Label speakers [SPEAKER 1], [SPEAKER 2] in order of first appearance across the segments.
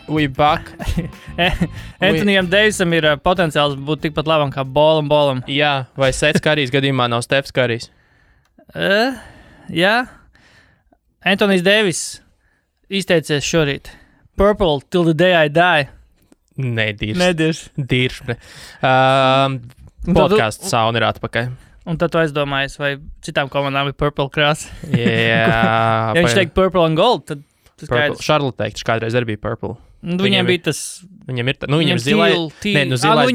[SPEAKER 1] We back.
[SPEAKER 2] Antonijam Deivisam ir potenciāls būt tikpat labam kā Bolam.
[SPEAKER 1] Jā, vai Sets Karijs gadījumā nav Stefs Karijs?
[SPEAKER 2] Jā. Antonijs Deivis izteicies šorīt. Purple till the day I die.
[SPEAKER 1] Nedirš. Podcasts sauna ir atpakaļ.
[SPEAKER 2] Un tad tu aizdomājies, vai citām komandām ir purple krāsa.
[SPEAKER 1] Jā.
[SPEAKER 2] Ja viņš teikt purple and gold, tad tas skaidrs.
[SPEAKER 1] Charlotte teikt, kādreiz arī bija purple.
[SPEAKER 2] Viņiem bija tas...
[SPEAKER 1] Viņiem ir, viņiem zilais,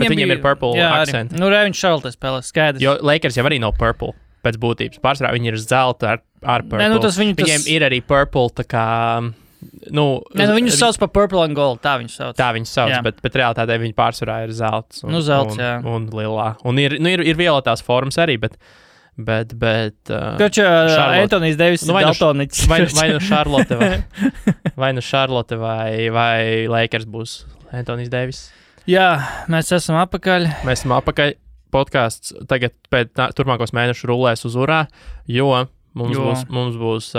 [SPEAKER 1] bet viņiem ir purple accent.
[SPEAKER 2] Viņš Charlotte spēlē, skaidrs.
[SPEAKER 1] Jo Lakers jau arī nav purple pēc būtības. Pārsvarā viņi ir zelta ar purple. Viņiem ir arī purple, tā kā... viņus sauc par purple and gold, tā viņus sauc, bet realitātē viņi pārsvarā ir zelts un lilā. Un ir violetās formas arī, bet
[SPEAKER 2] Antonijs Deivis ir daltoniķis.
[SPEAKER 1] Vai nu Charlotte vai Lakers būs Antonijs Deivis.
[SPEAKER 2] Jā, mēs esam apakaļ.
[SPEAKER 1] Podcasts tagad pēc turpmākos mēnešus rulēs uz urā, jo mums būs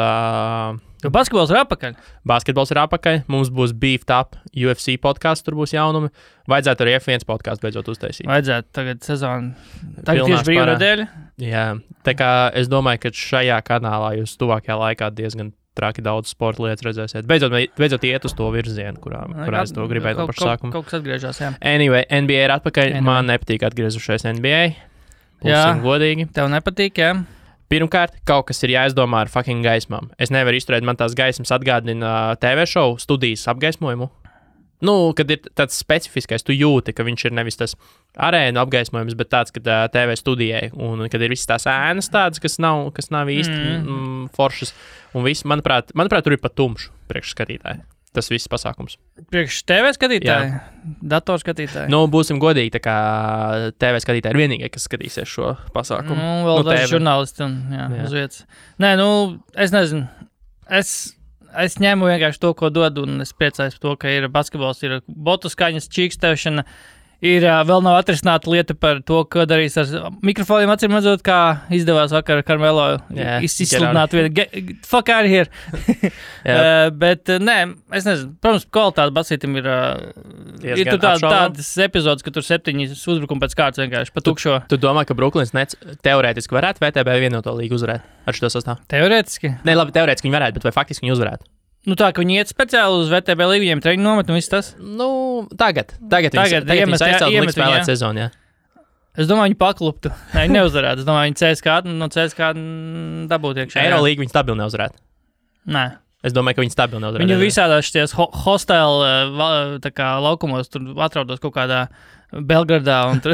[SPEAKER 2] basketbols ir apakaļ.
[SPEAKER 1] Basketbols ir apakaļ. Mums būs Beefed Up UFC podcasts, tur būs jaunumi. Vajadzētu arī F1 podcastu beidzot uztaisīt.
[SPEAKER 2] Vajadzētu tagad sezonu. Tagad tieši brīvā nedēļa.
[SPEAKER 1] Jā, tā kā es domāju, ka šajā kanālā jūs tuvākajā laikā diezgan traki daudz sporta lietas redzēsiet. Beidzot iet uz to virzienu, kurā es to gribēju no paša sākuma.
[SPEAKER 2] Kaut kas atgriežās, jā.
[SPEAKER 1] Anyway, NBA ir atpakaļ. Man nepatīk atgriezušies NBA. Būsim godīgi.
[SPEAKER 2] Tev nepatīk, jā.
[SPEAKER 1] Pirmkārt, kaut kas ir jāizdomā ar fucking gaismām. Es nevaru izturēt, man tās gaismas atgādina TV šovu studijas apgaismojumu. Kad ir tāds specifiskais, tu jūti, ka viņš ir nevis tas arēnu apgaismojums, bet tāds, kad TV studijai, un kad ir visas tās ēnas tādas, kas nav īsti foršas, un viss, manuprāt, tur ir pat tumšs priekšskatītāji. Tas viss pasākums.
[SPEAKER 2] Priekš TV skatītāji? Datorskatītāji?
[SPEAKER 1] Būsim godīgi, tā kā TV skatītāji ir vienīgie, kas skatīsies šo pasākumu.
[SPEAKER 2] Vēl daži žurnālisti un uz vietas. Nē, es nezinu. Es ņēmu vienkārši to, ko dod, un es priecājos par to, ka ir basketbols, ir botu skaņas, čīkstēšana. Ir vēl nav atrisināta lieta par to, ko darīs ar mikrofoniem, acīm redzot, kā izdevās vakar Karmelo izsludināt vienu. Fuck out of here. Bet, nē, es nezinu. Protams, kvalitāte basītam ir tur tādas epizodes, ka tur 7 uzbrukumi pēc kārtas vienkārši pa tukšo.
[SPEAKER 1] Tu domā, ka Brooklyns Nets teorētiski varētu VTB vienoto līgu uzvarēt ar šo sastāvu?
[SPEAKER 2] Teorētiski?
[SPEAKER 1] Nē, labi, teorētiski viņi varētu, bet vai faktiski viņi uzvarētu?
[SPEAKER 2] Tā, ka viņi iet speciāli uz VTB līgu, viņiem treniņu nomet un viss tas?
[SPEAKER 1] Tagad viņi aizcelt likt spēlēt sezonu, jā.
[SPEAKER 2] Es domāju, viņi pakluptu. Nē, viņi neuzvarētu. Es domāju, viņi CSKA dabūtu iekšā.
[SPEAKER 1] Eirolīgu viņi stabili neuzvarētu.
[SPEAKER 2] Nē.
[SPEAKER 1] Es domāju, ka viņi stabili neuzvarētu.
[SPEAKER 2] Viņi visādās šies hostile tā kā laukumos tur atraudos kaut kādā Belgradā un tur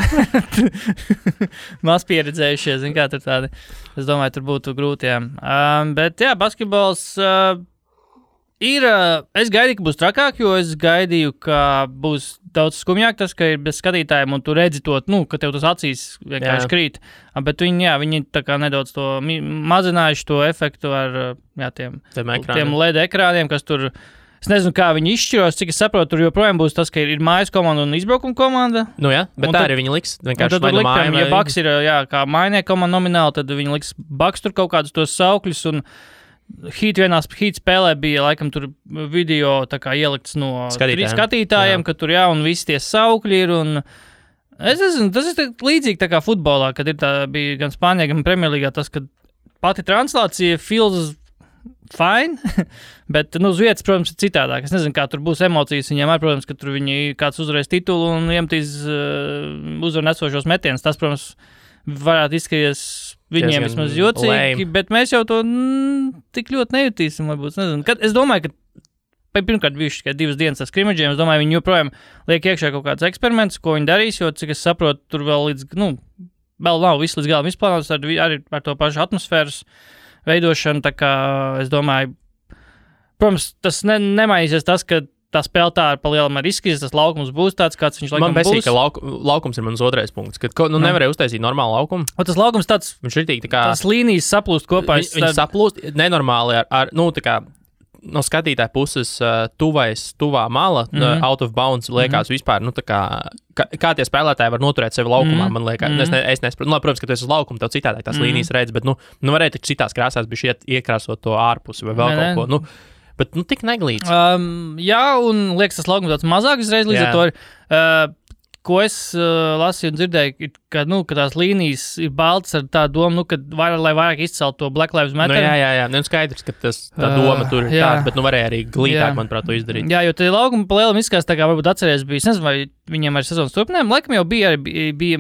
[SPEAKER 2] maz pieredzējušies, zin kā tur tādi. Es domāju, tur būtu grūti, jā. Bet jā, basketbols... Es gaidīju, ka būs trakāk, jo es gaidīju, ka būs daudz skumjāk tas, ka ir bez skatītājiem un tu redzi to, ka tev tas acīs vienkārši krīt. Bet viņi tā kā nedaudz to mazinājuši to efektu ar tiem LED ekrāniem, kas tur, es nezinu, kā viņi izšķiros, cik es saprotu, tur joprojām būs tas, ka ir mājas komanda un izbraukuma komanda.
[SPEAKER 1] Bet tā arī viņi liks. Vienkārši vai nu māja.
[SPEAKER 2] Ja Bucks ir, kā mājnieku komanda nomināli, tad viņi liks Bucks tur kaut kādus tos saukļus un Heat spēlē bija, laikam, tur video tā kā ielikts no skatītājiem, ka tur, un visi tie saukļi ir, un es nezinu, tas ir līdzīgi tā kā futbolā, kad bija gan Spānijā, gan Premjerlīgā tas, ka pati translācija feels fine, bet, uz vietas, protams, ir citādāk. Es nezinu, kā tur būs emocijas viņiem, protams, ka tur viņi kāds uzvarēs titulu un iemetīs uzvaru nesošos metienus. Tas, protams, varētu izskaties viņiem vismaz jocīgi, bet mēs jau to tik ļoti nejutīsim, varbūt, nezinu. Es domāju, ka pirmkārt bijuši tikai 2 dienas ar skrimidžiem, es domāju, viņi joprojām liek iekšā kaut kāds eksperiments, ko viņi darīs, jo, cik es saprotu, tur vēl vēl nav viss līdz galam izplānots, arī ar to pašu atmosfēras veidošanu, tā kā es domāju, protams, tas nemainīsies tas, ka tā spēle tā ar palielam ar izskatīs, tas laukums būs tāds, kāds viņš laikam būs.
[SPEAKER 1] Man besīk, ka laukums ir mans otrais punkts, kad nevarēja uztaisīt normālu laukumu.
[SPEAKER 2] Tas laukums tāds,
[SPEAKER 1] viņš ir tā kā...
[SPEAKER 2] Tās līnijas saplūst kopā.
[SPEAKER 1] Viņi saplūst nenormāli ar tā kā no skatītāja puses tuvā mala, out of bounds, liekas vispār, nu, tā kā tie spēlētāji var noturēt sevi laukumā, man liekas. Es nesaprotu, nu, protams, ka tu esi uz laukuma, tev citādāk tās līnijas redz, bet, nu varēja tik citās krāsās bišķi iekrāsot to ārpusi vai vēl kaut ko, nu. Bet, nu, tik neglīts.
[SPEAKER 2] Jā, un liekas, tas laukums tāds mazāk uzreiz līdz ar to. Ko es lasīju un dzirdēju, ka tās līnijas ir baltas ar tā domu, ka lai vairāk izcelt to Black Lives Matter.
[SPEAKER 1] Jā. Nu, skaidrs, ka tā doma tur ir tāda, bet varēja arī glītāk, manuprāt, to izdarīt.
[SPEAKER 2] Jā, jo tie laukumi pa lielam izskatās tā kā varbūt atceries bija, es nezinu, vai viņiem arī sezonas turpinājumu. Laikam jau bija,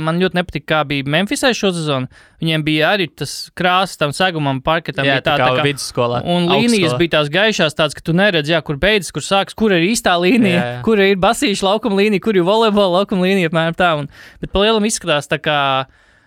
[SPEAKER 2] man ļoti nepatika, kā bija Memphisai šo sezonu. Viņiem bija arī tas krāsas tam segumam, parketam.
[SPEAKER 1] Jā, tā kā vidusskolā.
[SPEAKER 2] Un līnijas bija tās gaišās tāds, ka tu neredz, kur beidzas, kur sāks, kur ir īstā līnija, kur ir basīša laukuma līnija, kur ir volejbola laukuma līnija, apmēram tā. Bet pa lielam izskatās tā kā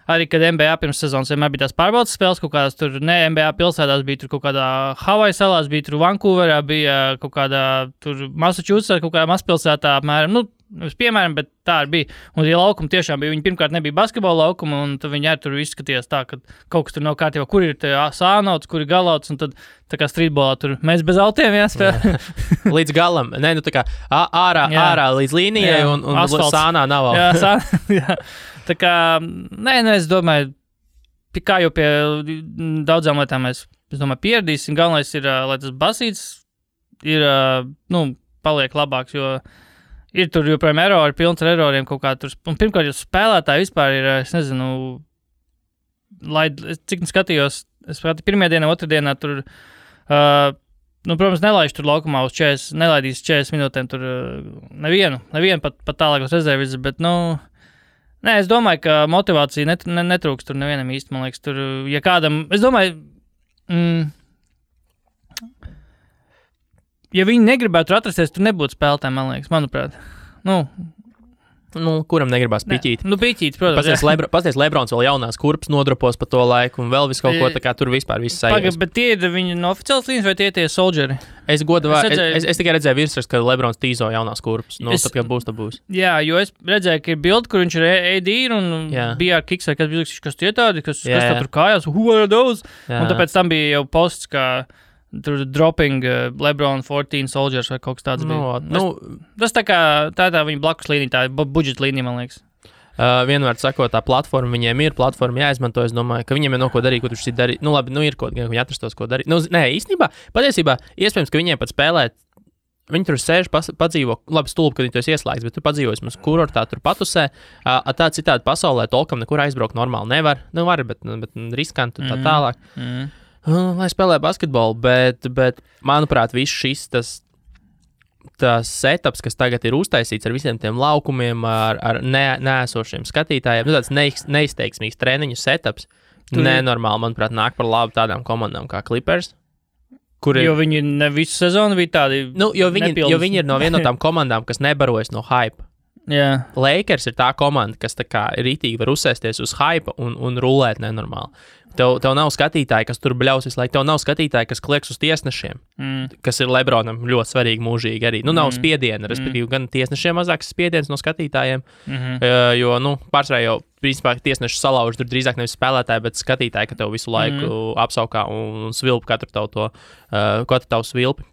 [SPEAKER 2] arī, kad NBA pirms sezonas vienmēr bija tās pārbaudas spēles, kaut kādās tur, ne NBA pilsētās, bija tur kaut kādā Havaju salās, bija tur Vancouverā, bija kaut kādā tur Massachusettsā, kaut kādā mazpilsētā, apmēram, nu, piemēram, bet tā arī bija. Un tie laukumi tiešām bija, viņi pirmkārt nebija basketbola laukumi, un tad viņi arī tur izskatījās tā, ka kaut kas tur nav kārtībā, kur ir sānauts, kur ir galauts, un tad tā kā streetbolā tur mēs bez autiem jāspēlē.
[SPEAKER 1] Līdz galam, ne, nu tā kā ārā līdz līnijai, un sānā nav.
[SPEAKER 2] Jā. Tā kā, es domāju, kā jau pie daudzām lietām mēs, es domāju, pieradīsim. Galvenais ir, lai tas basīts ir, paliek labāks, jo ir tur joprojām erori, pilns ar eroriem kaut kā tur. Un pirmkārt, jo spēlētāji vispār ir, es nezinu, cik skatījos, es pirmajā dienā, otrdienā tur, protams, nelaiž tur laukumā uz 40, nelaidīs 40 minūtēm tur nevienu pat tālākos rezervis, bet, es domāju, ka motivācija netrūks tur nevienam īsti, man liekas, tur, ja kādam, es domāju, ja viņi negribētu atrasties, tur nebūtu spēlētāji, man liekas, manuprāt.
[SPEAKER 1] Kuram negribās piķīt?
[SPEAKER 2] Piķīt, protams.
[SPEAKER 1] Pasties Lebrons vēl jaunās kurpes nodropos pa to laiku un vēl visu kaut ko, tā kā tur vispār viss sajūs.
[SPEAKER 2] Bet tie ir viņi no oficiālas līnijas vai tie soldieri?
[SPEAKER 1] Es tikai redzēju virsrakstu, ka Lebrons tīzo jaunās kurpes. Tad, kad būs, tad būs.
[SPEAKER 2] Jā, jo es redzēju, ka ir bildi, kur viņš ir AD un bija ar kiks, vai kas bija, kas tie tādi, kas tā tur kājās, who are those? Un tāpēc tam bija jau posts, ka tur dropping LeBron 14 soldiers vai kaut kas tāds bija. Tas tā kā tā viņa blakus līnija, tā budžeta līnija, man liekas.
[SPEAKER 1] Vienmēr sakot, tā platforma viņiem ir, platforma jāizmanto, es domāju, ka viņiem ir no ko darīt, ko tu šī darīt. Ir kaut gan viņi atrastos, ko darīt. Īstenībā, patiesībā, iespējams, ka viņiem pat spēlēt, viņi tur sēž, padzīvo, labi stulbi, kad viņi to ieslēgts, bet tu padzīvojas mums kurortā, tur patusē, tā citādi pasaulē tolkam nekur aizbraukt normāli nevar, var, bet riskanti tā tālāk. Lai spēlē basketbolu, bet manuprāt, viss šis tas setups, kas tagad ir uztaisīts ar visiem tiem laukumiem, ar neesošiem skatītājiem, tāds neizteiksmīgs treniņu setups, nenormāli, manuprāt, nāk par labu tādām komandām kā Clippers.
[SPEAKER 2] Jo viņi ne visu sezonu bija tādi
[SPEAKER 1] jo viņi ir no viena no tām komandām, kas nebarojas no hype.
[SPEAKER 2] Yeah.
[SPEAKER 1] Lakers ir tā komanda, kas tā kā rītīgi var uzsēsties uz hype un rulēt nenormāli. Tev nav skatītāji, kas tur bļaus visu laiku. Tev nav skatītāji, kas klieks uz tiesnešiem, kas ir Lebronam ļoti svarīgi mūžīgi arī. Nav spiediena, respektīvi gan tiesnešiem mazāks spiediens no skatītājiem, jo, pārsvarā jau, principā, tieslieši salauž tur drīzāk nevis spēlētāji, bet skatītāji, ka tev visu laiku apsaukā un svilp katru tavu svilpi.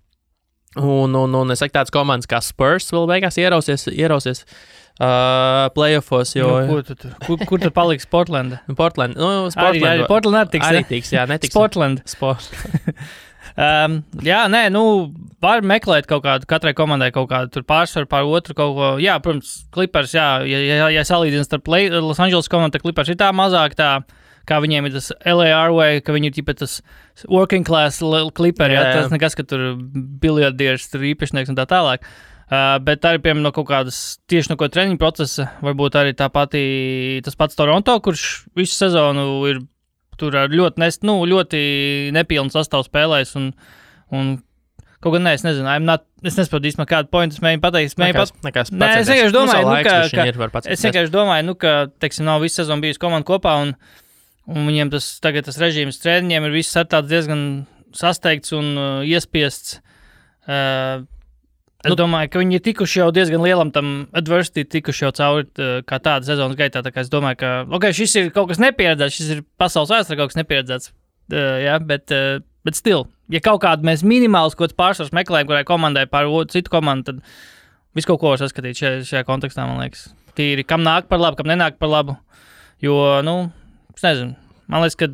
[SPEAKER 1] Un es saku, tādas komandas kā Spurs vēl beigās ierausies playoffs, jo...
[SPEAKER 2] Kur tad paliks Portlanda?
[SPEAKER 1] Portland.
[SPEAKER 2] Arī Portland
[SPEAKER 1] arī tiks, jā, netiks.
[SPEAKER 2] Portland. Var meklēt kaut kādu, katrai komandai kaut kādu tur pārsvaru pār otru kaut ko. Jā, protams, Clippers, ja salīdzina starp Los Angeles komandu, tad Clippers ir tā mazāk tā, kā viņiem ir tas LA Airway, ka viņi ir tipa tas working class Clipperi, tas nekas, ka tur biljardieris, tur īpašnieks un tā tālāk. Bet arī, piemēram, no kaut kādas tieši no treniņu procesa, varbūt arī tas pats Toronto, kurš visu sezonu ir tur ar ļoti nepilnu sastāvu spēlējis un kaut gan es nezinu, es nesaprotu īstenībā kādu pointu, es mēģinu pateikt. Es vienkārši domāju, ka, teiksim, nav visu sezonu bijusi komanda kopā un viņiem tagad tas režīms treniņiem ir viss tāds diezgan sasteigts un iespiests. Es domāju, ka viņi ir tikuši jau diezgan lielam tam adversity, tikuši jau cauri kā tāda sezonas gaitā, tā kā es domāju, ka, šis ir kaut kas nepieredzēts, šis ir pasaules vēsturē kaut kas nepieredzēts, bet Bet still, ja kaut kādu mēs minimāls kaut kāds pārsvars meklējam, kurai komandai pār citu komandu, tad visu kaut ko var saskatīt šajā kontekstā, man liekas. Tīri, kam nāk par labu, kam nenāk par labu. Jo, es nezinu, man liekas, ka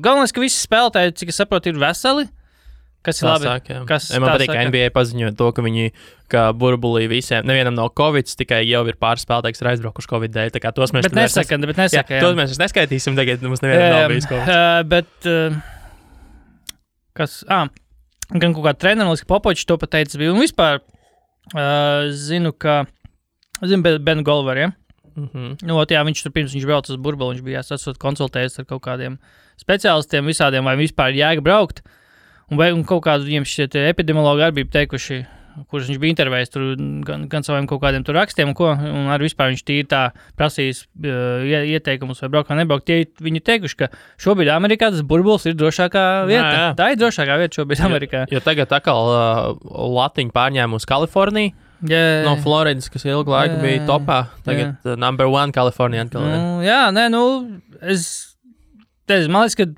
[SPEAKER 2] galvenais, ka visi spēlētāji, cik es saprotu, ir veseli. Kas ir labi?
[SPEAKER 1] Man patīk, ka NBA paziņoja to, ka viņi, kā burbulī visiem, nevienam nav Covid, tikai jau ir pāris spēlētāji, kas ir aizbraukuši Covid dēļ. Tā kā tos mēs
[SPEAKER 2] nesaka.
[SPEAKER 1] Tos mēs neskaitīsim, tagad mums nevienam nav bijis Covid.
[SPEAKER 2] Bet, gan kaut kā treneris, ka Popovičs to pateicis bija. Un vispār zinu Benu Golveru, ja? Viņš tur pirms viņš brauc uz burbuli, viņš bija konsultējies ar kaut kādiem speciālistiem visādiem, vai vispār jēga braukt. Un kaut kādu viņiem šie epidemiologi arī bija teikuši, kurus viņš bija intervējis tur gan saviem kaut kādiem tur rakstiem, un arī vispār viņš tīri tā prasījis ieteikumus vai braukt vai nebraukt. Viņi teikuši, ka šobrīd Amerikā tas burbulis ir drošākā vieta. Jā. Tā ir drošākā vieta šobrīd Amerikā.
[SPEAKER 1] Jo tagad atkal latiņu pārņēma uz Kaliforniju. No Floridas, kas ilgu laiku bija topā. Tagad number one Kalifornija atkal.
[SPEAKER 2] Man liekas, ka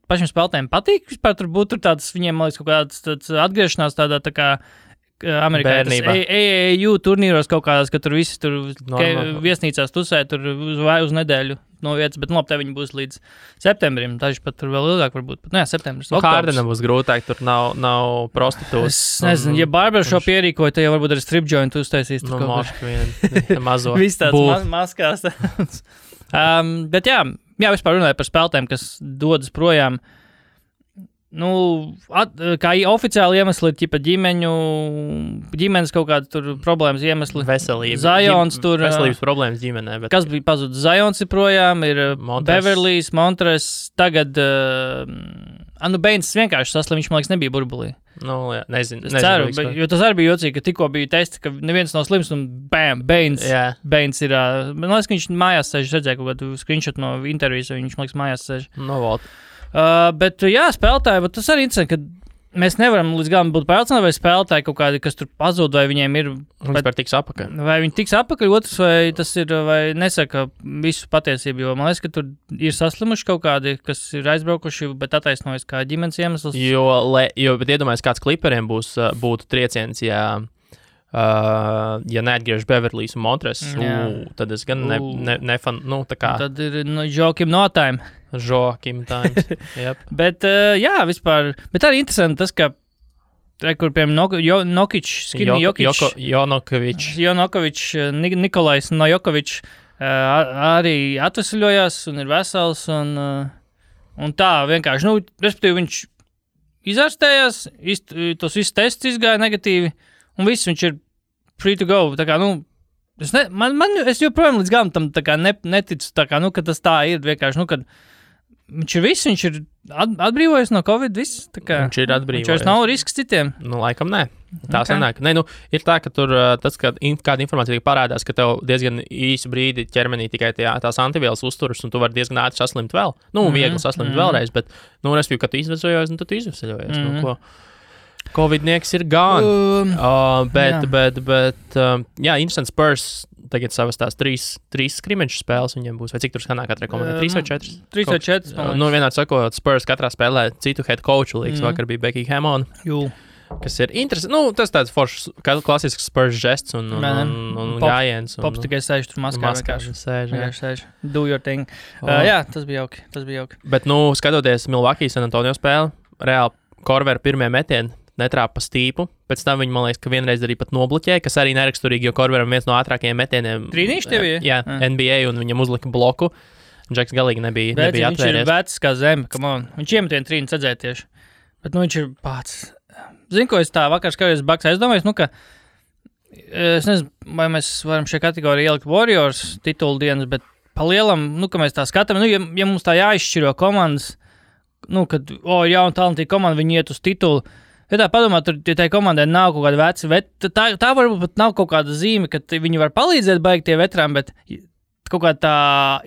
[SPEAKER 2] pašiem spēlētājiem patīk vispār tur būt tāds, viņiem, man liekas, kaut kāds atgriešanās tādā tā kā Amerikā AAU turnīros kaut kādās, ka tur visi tur viesnīcās tusē tur uz nedēļu no vietas, bet labi, te viņi būs līdz septembrim, daži pat tur vēl ilgāk varbūt, bet septembris.
[SPEAKER 1] Hārdenam būs grūtāk, tur nav prostitūtas.
[SPEAKER 2] Es nezinu, ja barbershop ierīkoja, tad jau varbūt arī strip joint uztaisīs.
[SPEAKER 1] Moški vien, mazo.
[SPEAKER 2] Viss tāds maskās. Bet jā, vispār runāja par spēlētājiem, kas dodas projām. Kā oficiāli iemesli ir ģimenes kaut kāda tur problēmas iemesli.
[SPEAKER 1] Veselība.
[SPEAKER 2] Zions tur.
[SPEAKER 1] Veselības problēmas ģimenē. Bet...
[SPEAKER 2] Kas bija pazudis? Zions ir projām, ir Beverlijs, Montres, tagad Baines vienkārši saslim, viņš, man liekas, nebija burbulī.
[SPEAKER 1] Nezinu.
[SPEAKER 2] Es ceru, jo tas arī bija jocīgi, ka tikko bija testi, ka neviens nav slims un bam, Baines ir. Man liekas, ka viņš mājās sēž, redzēja kaut kādu screenshot no intervijas, viņš, man liekas, mājās sēž. Bet, spēlētāji, tas arī interesanti, ka mēs nevaram līdz galam būt pārliecināti, vai spēlētāji kaut kādi, kas tur pazūd, vai viņiem ir...
[SPEAKER 1] Vispār tiks apakaļ.
[SPEAKER 2] Vai viņi tiks apakaļ, otrs, vai tas ir, vai nesaka visu patiesību, jo man liekas, ka tur ir saslimuši kaut kādi, kas ir aizbraukuši, bet attaisnojas kā ģimenes iemesls.
[SPEAKER 1] Bet iedomājies, kāds kliperiem būtu trieciens, ja neatgriež Beverlijs un Montres, tad es gan nefan, tā kā...
[SPEAKER 2] Tad ir Joakim no time.
[SPEAKER 1] Joakim times, yep.
[SPEAKER 2] Bet, vispār, bet arī interesanti tas, ka kur, piemēram, Jonokovičs, Nikolais Nojokovičs arī atvesļojās un ir vesels, un tā vienkārši, respektīvi viņš izārstējās, tos visus tests izgāja negatīvi, un viss viņš ir free to go, tā kā, es joprojām līdz galam tam tā kā neticu, tā kā, ka tas tā ir vienkārši, kad viņš ir atbrīvojies no Covid, viss, tā kā.
[SPEAKER 1] Viņš ir atbrīvojies.
[SPEAKER 2] Viņš vairs nav risks citiem.
[SPEAKER 1] Laikam nē. Tā sanāk. Ir tā, ka tur tas, kad kāda informācija parādās, ka tev diezgan īsu brīdi ķermenī tikai tās antivielas uzturas, un tu vari diezgan ātri saslimt vēl. Viegli saslimt vēlreiz, bet, respektīvi, kad tu izvesojies, tad tu izvesojies. Covidnieks ir gone. Instant Spurs tagad savas tās trīs skrimeču spēles viņiem būs. Vai cik tur skanā katrai komandai? 3 vai 4?
[SPEAKER 2] 3 vai 4.
[SPEAKER 1] Vienādi sakot, Spurs katrā spēlē citu head coachu līgas. Vakar bija Becky Hammond. Kas ir interesanti. Tas tāds foršs, klasisks Spurs žests un gājiens.
[SPEAKER 2] Pops tikai sēž tur maskā. Sēž. Do your thing. Tas bija jauki.
[SPEAKER 1] Bet, skatoties Milwaukee San Antonio spēli, reāli Korver pirmie metieni netrāpa stīpu, pēc tam viņi, man liekas, ka vienreiz arī pat nobloķēja, kas arī neraksturīgi, jo Korveram viens no ātrākajiem metieniem.
[SPEAKER 2] Trīnīši tev ir?
[SPEAKER 1] Jā, NBA, un viņam uzlika bloku. Džeks galīgi nebija atvērties.
[SPEAKER 2] Viņš ir vecs kā zeme, come on. Viņš iemetienu trīni sadzēja tieši. Bet, viņš ir pats. Zinu, ko es tā vakar skatījos Bucks aizdomājos, ka es nezinu, vai mēs varam šajā kategorijā ielikt Warriors titulu dienas, bet pa lielam, ka mēs tā skatām, ja mums tā jāizšķiro komandas, kad, jauna talantīga komanda, viņi iet uz titulu. Ja tā padomā, tur tai komandai nav kaut kāda veci, tā varbūt pat nav kaut kāda zīme, ka viņi var palīdzēt baigi tie veterāni, bet kaut kā tā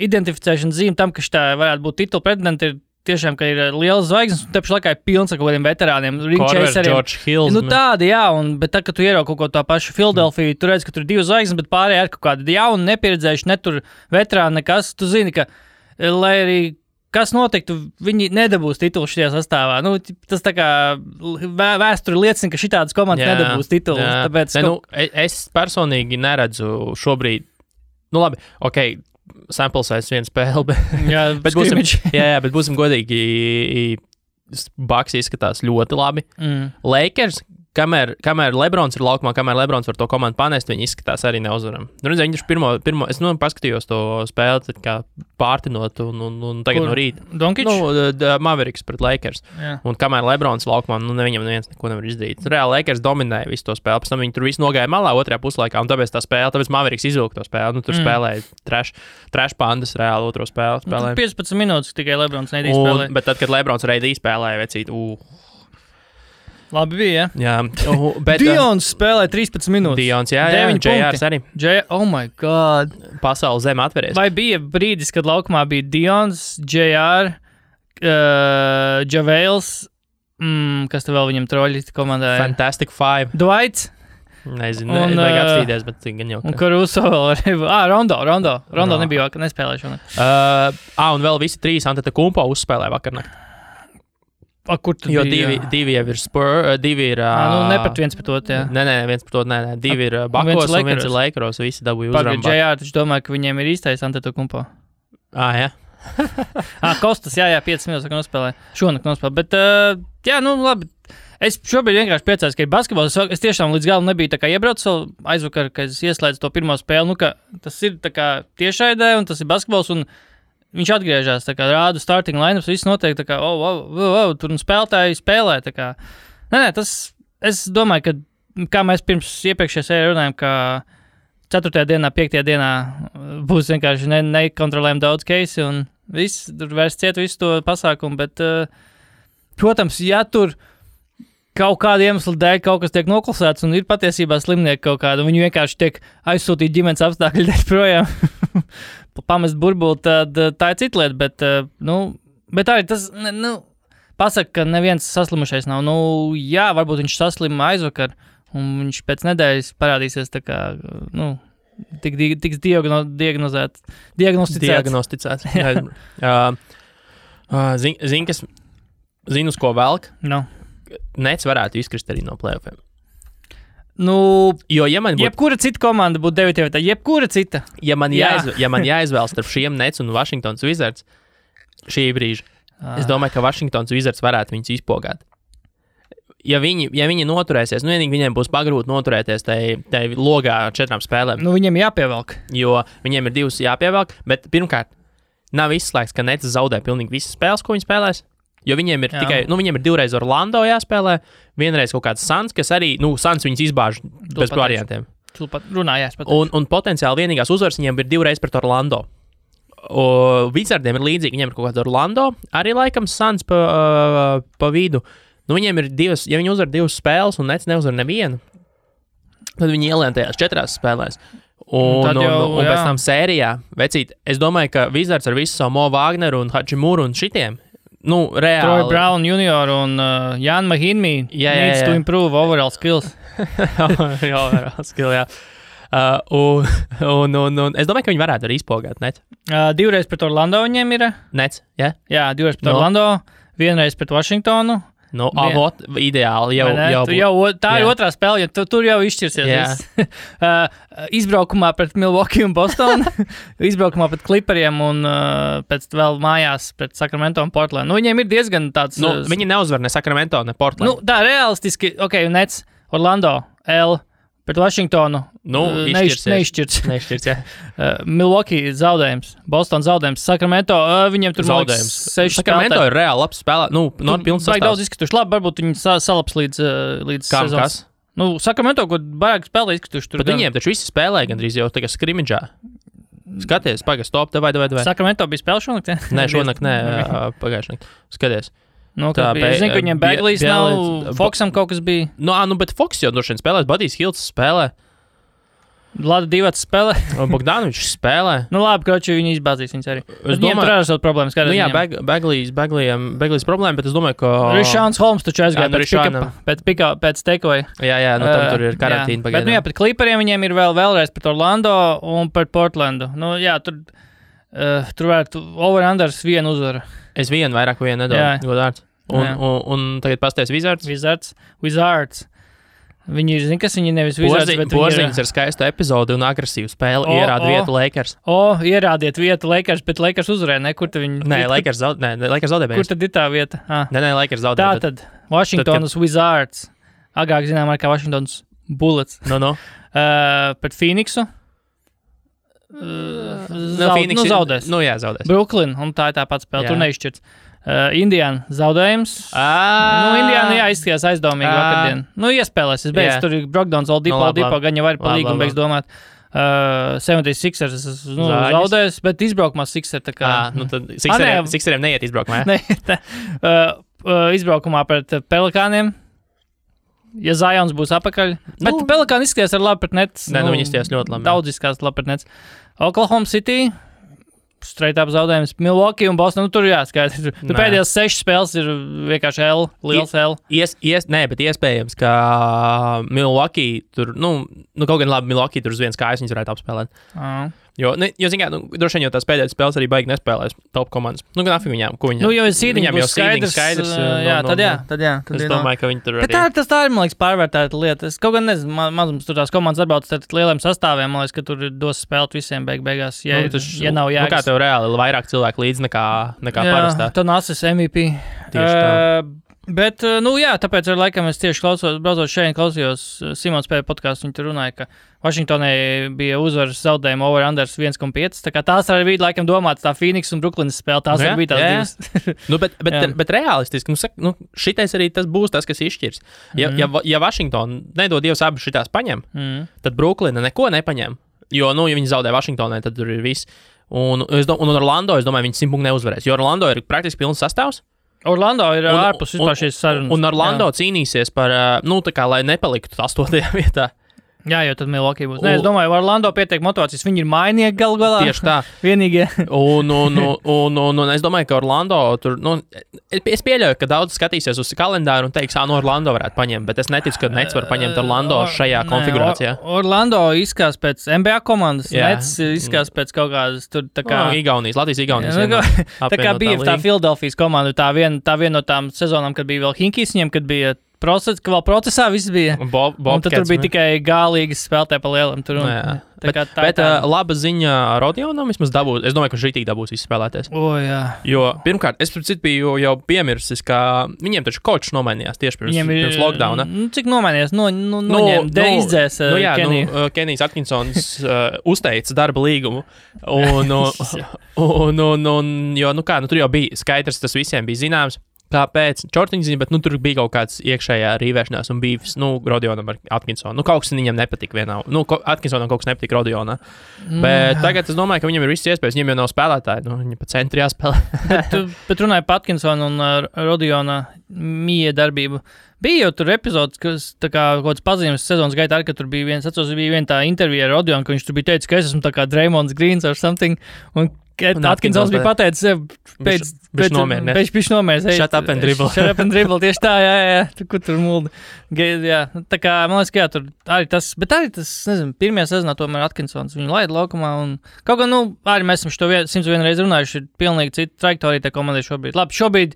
[SPEAKER 2] identificēšana zīme tam, ka šitā varētu būt titula pretendenti, ir tiešām, ka ir liels zvaigznes, un tepši laikā ir pilns ar kaut kādiem veterāniem.
[SPEAKER 1] George Hills.
[SPEAKER 2] Tādi, bet tā, ka tu ieraugi kaut ko tā pašu Philadelphia, tu redz, ka tur ir 2 zvaigznes, bet pārējie ir kaut kādi jauni, nepieredzējuši, ne tur veterāni nekas. Tu zini, ka, lai arī kas notiktu, viņi nedabūs titulu šajā sastāvā. Nu, tas tā kā vēsture liecina, ka šitādas komandas nedabūs titulu. Tāpēc,
[SPEAKER 1] es personīgi neredzu šobrīd, nu labi, okei, sample size viena spēle, bet būsim godīgi, Bucks izskatās ļoti labi. Lakers, kamēr Lebrons ir laukumā, kamēr Lebrons var to komandu panest, viņi izskatās arī neuzvaram. Viņi ir pirmo es paskatījos to spēli, kā pārtinot un tagad no rīta.
[SPEAKER 2] Donkič?
[SPEAKER 1] Mavericks pret Lakers. Jā. Un kamēr Lebrons laukumā, viņam neviens neko nevar izdarīt. Reāli Lakers dominēja visu to spēli, pēc tam viņi tur visu nogāja malā otrajā puslaikā, un tāpēc Mavericks izvilka to spēli. Tur spēlēja trash pandas reāli otro spēli.
[SPEAKER 2] 15 minūtes tikai Lebrons neidī spēlēja.
[SPEAKER 1] Bet tad, kad Lebrons reidī spēlēja, vecīt,
[SPEAKER 2] Labi bija,
[SPEAKER 1] jā. Bet
[SPEAKER 2] Dions spēlē 13 minūtes.
[SPEAKER 1] Dions, jā, JRs arī.
[SPEAKER 2] Oh my God.
[SPEAKER 1] Pasaules zeme atveries.
[SPEAKER 2] Vai bija brīdis, kad laukumā bija Dions, JR, Javales, kas te vēl viņam troļi komandā?
[SPEAKER 1] Fantastic Five.
[SPEAKER 2] Dwights?
[SPEAKER 1] Nezinu, vajag apstīties, bet gan jau.
[SPEAKER 2] Un Caruso vēl arī. Rondo nebija, nespēlēja šonakt.
[SPEAKER 1] Un vēl visi trīs Antetokounmpo uzspēlēja vakarnakt.
[SPEAKER 2] Kur tu
[SPEAKER 1] jo divi jau ir divi ir...
[SPEAKER 2] ne pat viens pret otru, jā.
[SPEAKER 1] Nē, viens pret otru, nē. Divi ir Bakos un viens ir Lakeros, visi dabūja uzvaru.
[SPEAKER 2] JR, taču domāju, ka viņiem ir īstais Antetokounmpo.
[SPEAKER 1] Jā.
[SPEAKER 2] Kostas, jā, 5 minūtes nospēlē. Šonakt nospēlē, bet, labi. Es šobrīd vienkārši priecājos, ka ir basketbols. Es tiešām līdz galam nebiju tā kā iebraucis vēl aizvakar, kad es ieslēdzu to pirmo spēli, ka tas ir tā kā tiešraidē un tas ir basketbols un viņš atgriežas, tā kā rāda starting lineups, viss notiek, tā kā, tur un spēlētāji spēlē, tā kā. Nē, es domāju, ka, kā mēs pirms iepriekšējā sērijā runājam, ka 4. dienā, 5. dienā būs vienkārši nekontrolējami daudz keisi un viss, tur vairs ciet visu to pasākumu, bet, protams, ja tur kaut kāda iemesla dēļ kaut kas tiek noklusēts un ir patiesībā slimnieki kaut kāda, un viņi vienkārši tiek aizsūtīti ģimenes apstākļi dēļ projām, pamest burbuli, tad tā ir cita lieta, bet arī tas, pasaka, ka neviens saslimušais nav. Jā, varbūt viņš saslima aizvakar, un viņš pēc nedēļas parādīsies tā kā, tiks diagnosticēts. Zinu, uz ko velk? Nets varētu izkrist arī no playoffiem. Jo, jebkura cita komanda būtu 9. vietā, jebkura cita.
[SPEAKER 1] Ja man jāizvēlas starp šiem Nets un Washingtons Wizards šī brīža, es domāju, ka Washingtons Wizards varētu viņus izpogāt. Ja viņi noturēsies, vienīgi viņiem būs pagrūti noturēties tai logā 4 spēlēm.
[SPEAKER 2] Viņiem jāpievelk.
[SPEAKER 1] Jo viņiem ir 2 jāpievelk, bet pirmkārt, nav izslēgts, ka Nets zaudē pilnīgi visas spēles, ko viņi spēlēs. Jo viņiem ir tikai, viņiem ir 2 reizes Orlando jāspēlē, vienreiz kaut kāds Suns, kas arī, Suns viņus izbāž bez variantiem. Un potenciāli vienīgās uzvaras viņiem ir 2 reizes pret Orlando. Wizardiem ir līdzīgi, viņiem ir kaut kāds Orlando, arī laikam Suns pa vidu. Viņiem ir 2, ja viņi uzvar 2 spēles un Nets neuzvar nevienu, tad viņi ielien tajās 4 spēlēs. Un pēc tam sērijā, vecīt, es domāju, ka Wizards ar visu savu Mo Wagneru un Hachimuru un šitiem, reāli.
[SPEAKER 2] Troy Brown Jr. un Jan Mahinmi needs to improve overall skills.
[SPEAKER 1] Overall skill, jā. Un es domāju, ka viņi varētu arī izpogāt Nets.
[SPEAKER 2] 2 reizes pret Orlando viņiem ir.
[SPEAKER 1] Nets, jā?
[SPEAKER 2] Jā, 2 reizes pret Orlando, 1 reize pret Washingtonu.
[SPEAKER 1] Ideāli
[SPEAKER 2] tā ir otrā spēle, jo tur jau izšķirsies. Izbraukumā pret Milwaukee un Bostonu, izbraukumā pret Clipperiem un pēc vēl mājās pret Sacramento un Portland. Viņiem ir diezgan tāds...
[SPEAKER 1] Viņi neuzvar ne Sacramento, ne Portland.
[SPEAKER 2] Tā realistiski, Nets, Orlando, pret Washingtonu neizšķirts. Milwaukee zaudējums, Boston zaudējums, Sacramento, viņiem tur
[SPEAKER 1] zaudējums.
[SPEAKER 2] 6 spēlētāji.
[SPEAKER 1] Sacramento ir reāli labs spēlē, pilns sastāvs.
[SPEAKER 2] Daudz izkrituši, labi, varbūt viņi salaps līdz sezonas. Sacramento, ko baigi spēlē izkrituši tur.
[SPEAKER 1] Bet viņiem taču visi spēlē gandrīz jau tagad skrimidžā. Skaties, stop, vai.
[SPEAKER 2] Sacramento bija spēle šonakt, ja?
[SPEAKER 1] Nē, šonakt, pagājušajā naktī. Skaties.
[SPEAKER 2] Es zinu, ka viņiem Bagley's nav, Foxam kaut kas bija.
[SPEAKER 1] Bet Fox jau droši vien spēlēs, Budijs Hilts spēlē.
[SPEAKER 2] Lada Divats spēlē.
[SPEAKER 1] Bogdanovičs spēlē.
[SPEAKER 2] Labi, kroči, viņi izbāzīs viņus arī. Viņiem tur arī savas problēmas.
[SPEAKER 1] Bagley's problēma, bet es domāju, ka...
[SPEAKER 2] Rišāns Holmes taču aizgāja pēc takeaway.
[SPEAKER 1] Jā, tam tur ir karantīna pagaidām.
[SPEAKER 2] Bet pret Clipperiem viņiem ir vēlreiz pret Orlando un pret Portlandu. Tur... Tur varētu over-unders vienu uzvaru.
[SPEAKER 1] Es vienu vairāk nedodu, godārds. Un tagad pasties
[SPEAKER 2] Wizards. Viņi ir, kas viņi nevis Wizards, bet
[SPEAKER 1] Porziņš ar skaistu epizodi un agresīvu spēli ierāda vietu Lakers.
[SPEAKER 2] Ierādiet vietu Lakers, bet Lakers uzvarēja, ne? Kur tad viņi...
[SPEAKER 1] Lakers zaudēja.
[SPEAKER 2] Kur tad ir tā vieta?
[SPEAKER 1] Nē, Lakers zaudēja.
[SPEAKER 2] Tātad, Washingtonas Wizards. Agrāk zinām kā Washingtonas Bullets. Pret Phoenixu. Zaudēs.
[SPEAKER 1] Zaudēs.
[SPEAKER 2] Brooklyn, un tā ir tā pats spēle, tur neizšķirts. Indiana zaudējums. Indiana izskatījās aizdomīgi vakardien. Iespēlēs, es beidzu, tur ir Brogdons, Oldipo, gan jau var pa līgumu beigs domāt. 76ers zaudējis, bet izbraukumā Sixer tā kā...
[SPEAKER 1] tad Sixeriem neiet izbraukumā,
[SPEAKER 2] izbraukumā pret Pelikāniem. Ja Zions būs apakaļ. Bet Pelikāni izskatījās ar labi pret Nets.
[SPEAKER 1] Viņi izskatījās ļoti labi.
[SPEAKER 2] Daudz izskatījās labi pret Nets. Oklahoma City. Straight up zaudējums. Milwaukee un Boston. Tur jāskaidrs. Pēdējās 6 spēles ir vienkārši liels L.
[SPEAKER 1] Bet iespējams, ka Milwaukee tur, kaut gan labi Milwaukee tur uz vienas kājas viņas varētu apspēlēt. Jo zin kā, droši vien jau tās pēdējās spēles arī baigi nespēlēs top komandas. Gan afīgi viņām, ko viņam.
[SPEAKER 2] Jo viņam jau skaidrs. Tad jā.
[SPEAKER 1] Es domāju, ka viņi tur arī.
[SPEAKER 2] Bet tā ir, man liekas, pārvērtēta lieta. Es kaut gan nezinu, mazums tur tās komandas atbalsta ar lieliem sastāviem, man liekas, ka tur dos spēlēt visiem beigās, ja nav jāgas.
[SPEAKER 1] Kā tev reāli vairāk cilvēku līdz nekā parastā.
[SPEAKER 2] Tā nācis MVP.
[SPEAKER 1] Tieši tā.
[SPEAKER 2] Bet, tāpēc ar laikam es tieši braucot šeit klausījos Simons P. podcastu, viņi tur runāja, ka Vašingtonai bija uzvaras zaudējuma over-unders 1,5. Tā kā tās arī bija laikam domāts tā Phoenix un Brooklynas spēle, tās arī bija tās divas.
[SPEAKER 1] bet realistiski, šitais arī tas būs tas, kas izšķirs. Ja Vašingtona nedod Dievs abas šitās paņem, tad Brooklyna neko nepaņem. Jo, ja viņi zaudē Vašingtonai, tad tur ir viss. Un Orlando, es domāju, viņi 100 punktu neuzvarēs, jo Orlando ir praktiski pilns sastāvs.
[SPEAKER 2] Orlando ir ārpus vispār šīs sarunas.
[SPEAKER 1] Un Orlando cīnīsies par, tā kā, lai nepaliktu 8. vietā.
[SPEAKER 2] Jā, jo tad Milwaukee būs. Es domāju, Orlando pietiek motivācijas. Viņi ir mainieki galu galā.
[SPEAKER 1] Tieši tā.
[SPEAKER 2] Vienīgie.
[SPEAKER 1] un es domāju, ka Orlando tur, es pieļauju, ka daudz skatīsies uz kalendāru un teiks, Orlando varētu paņemt, bet es neticu, ka Nets var paņemt Orlando šajā konfigurācijā.
[SPEAKER 2] Orlando izskās pēc NBA komandas, Nets izskās pēc kaut kādas tur tā kā...
[SPEAKER 1] Latvijas-Igaunijas.
[SPEAKER 2] Tā kā bija tā Philadelphijas komanda, tā viena no tām sezonām, kad bija vēl Hinkijs viņiem, kad bija procesā viss bija. Un tad tur bija tikai gālīgas spēlētāji pa lielam.
[SPEAKER 1] Bet laba ziņa Rodionam vismaz dabūs. Es domāju, ka šī dabūs izspēlēties. Jo pirmkārt, es biju jau piemirsis, ka viņiem taču kočs nomainījās tieši pirms lockdowna.
[SPEAKER 2] Cik nomainījās? Noņem, izdzēs Keniju.
[SPEAKER 1] Kenijs Atkinsons uzteica darba līgumu. Tur jau bija skaidrs, tas visiem bija zināms. Kāpēc? Čortiņziņa, bet tur bija kaut kāds iekšējā rīvēšanās un bīvs, Rodionam ar Atkinsonu. Kaut kas viņam nepatika vienā. Atkinsonam kaut kas nepatika Rodionā. Bet tagad es domāju, ka viņam ir viss iespējas. Viņam jau nav spēlētāji. Viņi pa centri jāspēlē.
[SPEAKER 2] bet runāja par Atkinsonu un Rodiona mīja darbību. Bija jau tur epizodes, kas tā kā kaut kāds pazīmes sezonas gaitā, ka tur bija viena tā intervija ar Rodionu, ka viņš tur bija teicis, ka es esmu tā kā Draymonds Greens or something. Un Atkinsons bija pateicis, pēc nomērs.
[SPEAKER 1] Shut up and dribble.
[SPEAKER 2] Shut up and dribble, tieši tā, jā. Kur tur mulda. Jā, tā kā, man liekas, ka jā, tur arī tas, bet arī tas, nezinu, pirmajā sezonā tomēr Atkinsons viņu laida laukumā un kaut kā, arī mēs esam šo 101 reizi runājuši, ir pilnīgi cita trajektorija tā komandai šobrīd. Labi, šobrīd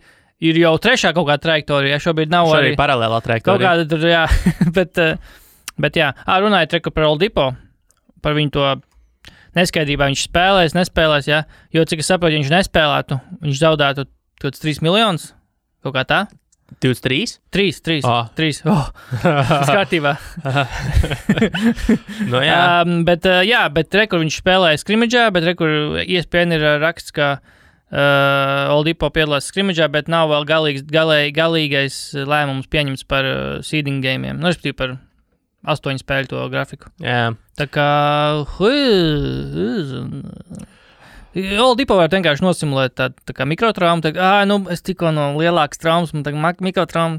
[SPEAKER 2] ir jau trešā kaut kāda trajektorija, šobrīd nav arī
[SPEAKER 1] paralēlā trajektorija.
[SPEAKER 2] Kaut kāda tur, jā, bet jā, runājot par Oldipo, par viņu to neskaidrībā viņš nespēlēs, jā, jo cik es saprotu, ja viņš nespēlētu, viņš zaudētu kaut kāds 3 miljonus, kaut kā tā.
[SPEAKER 1] 23?
[SPEAKER 2] 3. Tas kārtībā. Bet rekur viņš spēlēja skrimidžā, bet rekur ESPN ir raksts, ka Oldipo piedalās skrimidžā, bet nav vēl galīgais lēmums pieņemts par seeding gamiem. Respektīvi par 8 spēļu to grafiku.
[SPEAKER 1] Jā.
[SPEAKER 2] Tā kā... Oldipo var vienkārši nosimulēt tā kā mikrotraumu. Es tikko no lielākas traumas, man tagad mikrotrauma.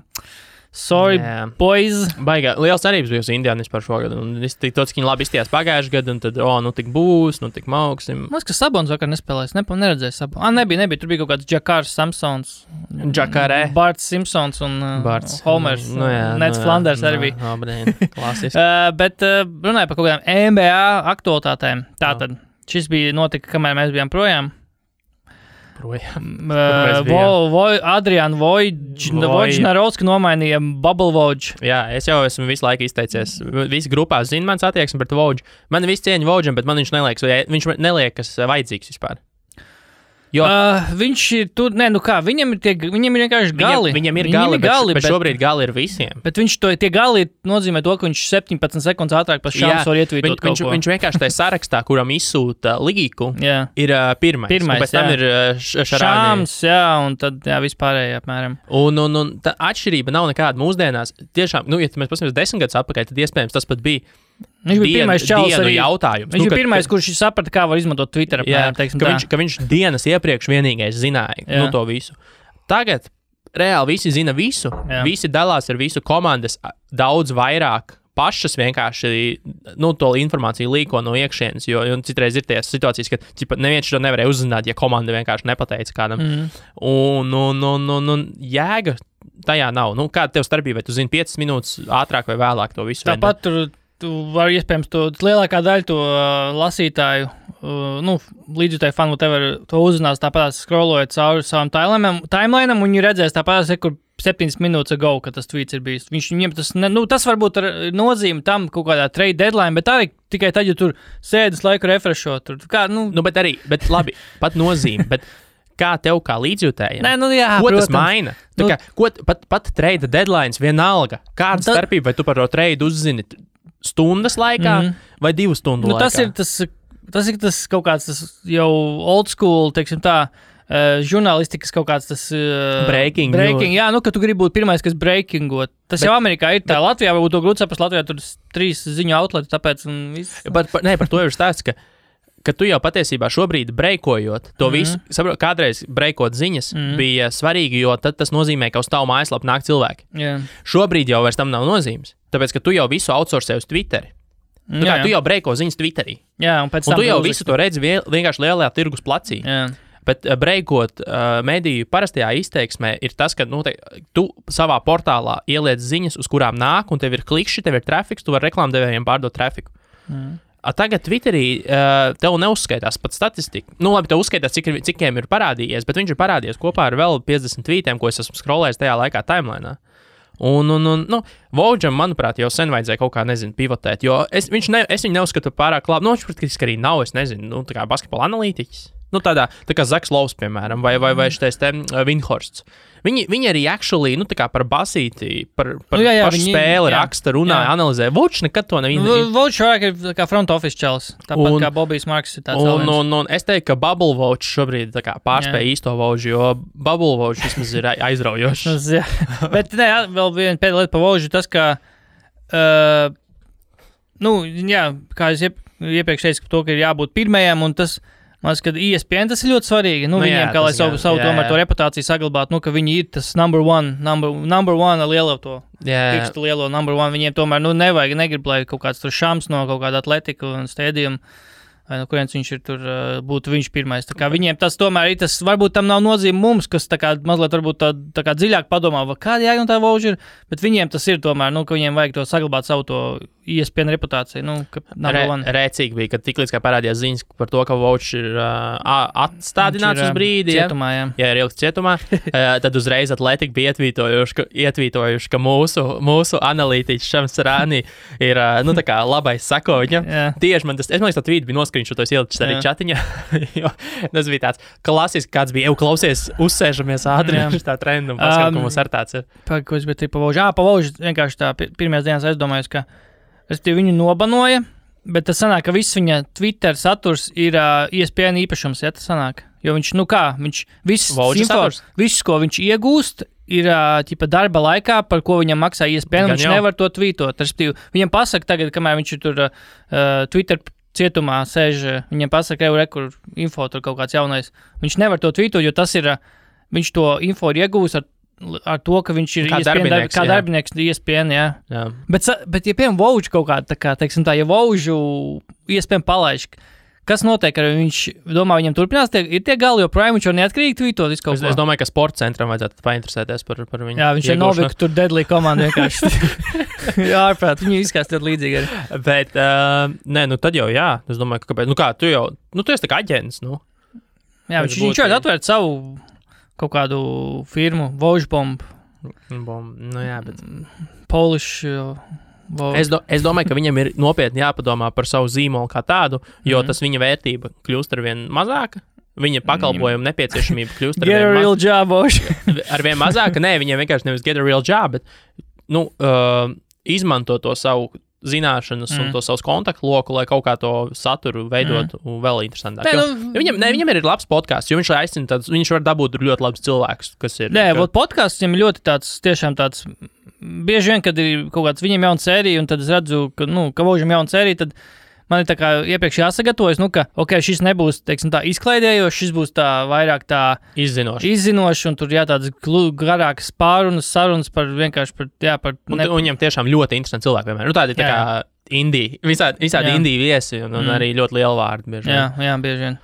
[SPEAKER 2] Sorry, boys.
[SPEAKER 1] Baigā. Liels cerības bija uz Indiānis par šo gadu. Un es tik tāds, ka viņi labi izstījās pagājuši gadu, un tad, tik būs, tik mauksim.
[SPEAKER 2] Man liekas, ka Sabons vakar nespēlēs. Neredzēju Sabons. Nebija. Tur bija kaut kāds Džakārs Samsons.
[SPEAKER 1] Džakārē.
[SPEAKER 2] Barts Simpsons un Homers. Nets Flanders arī bija.
[SPEAKER 1] Klasiski.
[SPEAKER 2] Bet runāju par kaut kādām NBA aktualitātēm. Tātad Šis bija notika, kamēr mēs bijām projām. Adriāna Vojģnarovska nomainīja Bubble Vojģ.
[SPEAKER 1] Jā, es jau esmu visu laiku izteicies. Visi grupā zina mans attieksmi pret Vojģu. Man visi cieņa Vojģam, bet man viņš neliekas vajadzīgs vispār. Jo
[SPEAKER 2] viņš ir tur, viņam ir vienkārši gali.
[SPEAKER 1] Viņam ir gali, bet šobrīd gali ir visiem.
[SPEAKER 2] Bet tie gali nozīmē to, ka viņš 17 sekundes ātrāk pa šāms var ietvītot kaut ko.
[SPEAKER 1] Viņš vienkārši tajā sarakstā, kuram izsūta līku, ir pirmais. Un pēc tam ir
[SPEAKER 2] šāms, un tad vispārēji apmēram.
[SPEAKER 1] Un tā atšķirība nav nekāda mūsdienās. Tiešām, ja mēs paskatāmies 10 gadus atpakaļ, tad iespējams tas pat bija
[SPEAKER 2] viņš bija pirmais čalis arī
[SPEAKER 1] jautājums.
[SPEAKER 2] Viņš bija pirmais, kurš saprata, kā var izmantot Twitter.
[SPEAKER 1] Ka viņš dienas iepriekš vienīgais zināja to visu. Tagad reāli visi zina visu. Visi dalās ar visu, komandas daudz vairāk pašas vienkārši to informāciju līko no iekšienes, jo citreiz ir tās situācijas, ka neviens to nevarēja uzzināt, ja komanda vienkārši nepateica kādam. Un jēga tajā nav. Kāda tev starpība, vai tu zini 5 minūtes ātrāk vai vēlāk to visu?
[SPEAKER 2] Tāpat tu vari iespējams lielākā daļa to lasītāju, līdzjutēju fanu, to uzzinās tāpat scrollojot cauri savam timelineam, un viņi redzēs tāpat, kur 7 minūtes ago, kad tas tweets ir bijis. Viņiem tas varbūt ar nozīmi tam kaut kādā trade deadline, bet arī tikai tad, ja tur sēdes laiku refreshot.
[SPEAKER 1] Bet labi, pat nozīmi, bet kā tev kā līdzjutējiem? Ko
[SPEAKER 2] protams.
[SPEAKER 1] Tas maina? Pat trade deadlines vienalga. Kāda starpība, vai tu par to trade uzzini stundas laikā vai 2 stundu laikā?
[SPEAKER 2] Tas ir tas kaut kāds tas jau old school, teiksim tā, žurnālistikas kaut kāds tas
[SPEAKER 1] breaking.
[SPEAKER 2] Jā, ka tu gribi būt pirmais, kas breakingot. Tas jau Amerikā ir tā. Latvijā varbūt to grūti saprast. Latvijā tur 3 ziņu outleti, tāpēc viss.
[SPEAKER 1] Par to ir stāsts, ka tu jau patiesībā šobrīd breikojot to visu, kādreiz breikot ziņas bija svarīgi, jo tad tas nozīmē, ka uz tavu mājaslapu nāk cilvēki. Šobrīd jau vairs tam nav nozīmes, tāpēc, ka tu jau visu outsourcēji uz Twitteri. Tu jau breiko ziņas Twitterī.
[SPEAKER 2] Un
[SPEAKER 1] tu jau visu to redzi vienkārši lielajā tirgus placī. Bet breikot mediju parastajā izteiksmē ir tas, ka tu savā portālā ieliec ziņas, uz kurām nāk, un tev ir klikšķi, tev ir trafiks, tu vari reklāmdevējiem pārdot trafiku. Tagad Twitterī tev neuzskaitās pat statistika. Labi, tev uzskaitās, cikiem ir parādījies, bet viņš ir parādījies kopā ar vēl 50 tweetiem, ko es esmu scrollējis tajā laikā timelineā. Vojģam, manuprāt, jau sen vajadzēja kaut kā, pivotēt, jo es viņu neuzskatu pārāk labi. Viņš praktiski arī nav, tā kā basketbola analītiķis. Tā kā Zaks Lovs, piemēram, vai šitais te Vinhorsts. Viņi arī actually, tā kā par basīti, par pašu spēli raksta, runāja, analizē. Vojģs nekad to nevienu.
[SPEAKER 2] Vojģs vairāk ir kā front office čalis, tāpat kā Bobijs Marks ir tāds
[SPEAKER 1] un es teiktu, ka Bubble Vojģs šobrīd tā kā pārspēja īsto Vojģu, jo Bubble Vojģs vismaz ir aizraujošs.
[SPEAKER 2] Bet vēl viena pēdējā lieta par Vojģu, tas, ka, kā es iepriekš teicu, to, ka ir jābūt pirmajam, un tas, man liekas, ka ESPN tas ir ļoti svarīgi. Viņiem, kā lai savu tomēr to reputāciju saglabātu, ka viņi ir tas number one ar lielo to pirkstu lielo number one. Viņiem tomēr, negrib, lai kaut kāds tur šams no kaut kāda atletika un stēdījuma, vai no kurienes viņš ir tur, būtu viņš pirmais. Tā kā viņiem tas tomēr ir, tas varbūt tam nav nozīme mums, kas tā kā mazliet varbūt tā kā dziļāk padomā, kāda jēga un tā Vojģa ir, bet viņiem tas ir tomēr, ka viņiem vajag to saglabāt savu to ESPN reputāciju.
[SPEAKER 1] Rēcīgi bija, kad tiklīdz kā parādījās ziņas par to, ka Vojģis ir atstādināts uz brīdi.
[SPEAKER 2] Cietumā,
[SPEAKER 1] jā, ir ilgs cietumā. Tad uzreiz Atletika bija ietvītojuši, ka mūsu analītiķis Šams Rānī ir, tā kā labais sako viņam. Tieši es man liekas, tā tvīti bija noskrīnšotos ielicis arī čatiņā, jo tas bija tāds klasisks, kāds bija, klausies, uzsēžamies ātri, tā trenda un paskat, ka mums ar tāds ir.
[SPEAKER 2] Ko es biju pa Vojģi vienkārši tā pirmajās dienās aizdomājos, ka viņu nobanoja, bet tas sanāk, ka viss viņa Twitter saturs ir ESPN īpašums, ja tas sanāk. Jo viņš, viss, ko viņš iegūst, ir darba laikā, par ko viņam maksā ESPN, viņš nevar to tvītot. Viņam pasaka tagad, kamēr viņš tur Twitter cietumā sēž, viņam pasaka, kur info tur kaut kāds jaunais. Viņš nevar to tvītot, jo tas ir, viņš to info ir iegūst ar to, ka viņš ir darbinieks ESPN, jā. Bet ja piemēram Vojģu kaut kāda, ja Vojģu ESPN palaiž, kas notiek, ar viņš domā, viņam turpinās, ir tie gali joprojām, viņš jau neatkarīgi tvītot visu kaut ko.
[SPEAKER 1] Es domāju, ka sporta centram vajadzētu painteresēties par viņu.
[SPEAKER 2] Jā, viņš ir Novik, tur Deadly komanda vienkārši. Jā, ārprāt, viņi izskās ļoti līdzīgi arī.
[SPEAKER 1] Bet, nē, nu tad jau jā, es domāju, ka kāpēc, tu esi tā kā aģents,
[SPEAKER 2] Jā, viņš jau atvērt savu kaut kādu firmu, Vojbomb.
[SPEAKER 1] Jā, bet...
[SPEAKER 2] Polish...
[SPEAKER 1] Es domāju, ka viņam ir nopietni jāpadomā par savu zīmolu kā tādu, jo tas viņa vērtība kļūst arvien mazāka. Viņa pakalpojuma nepieciešamība kļūst arvien mazāka. Nē, viņiem vienkārši nevis get a real job, bet izmanto to savu zināšanas un to savus kontaktu loku, lai kaut kā to saturu veidotu vēl interesantāk. Viņam ir labs podkāsts, jo viņš aicina tādus, viņš var dabūt ļoti labus cilvēkus, kas ir...
[SPEAKER 2] Nē, podkāsts viņam ļoti tiešām tāds, bieži vien, kad ir kaut kāds viņam jauna sērija, un tad es redzu, ka Vožam jauna sērija, tad man ir tā kā iepriekš jāsagatavojas, šis nebūs, teiksim tā, izklaidējošs, šis būs tā vairāk tā izzinošs, un tur tādas garākas sarunas par vienkārši par...
[SPEAKER 1] Un viņam tiešām ļoti interesanti cilvēki vienmēr. Tādi tā kā indija, visādi indija viesi, un arī ļoti liela vārdi bieži vien.
[SPEAKER 2] Jā, bieži vien.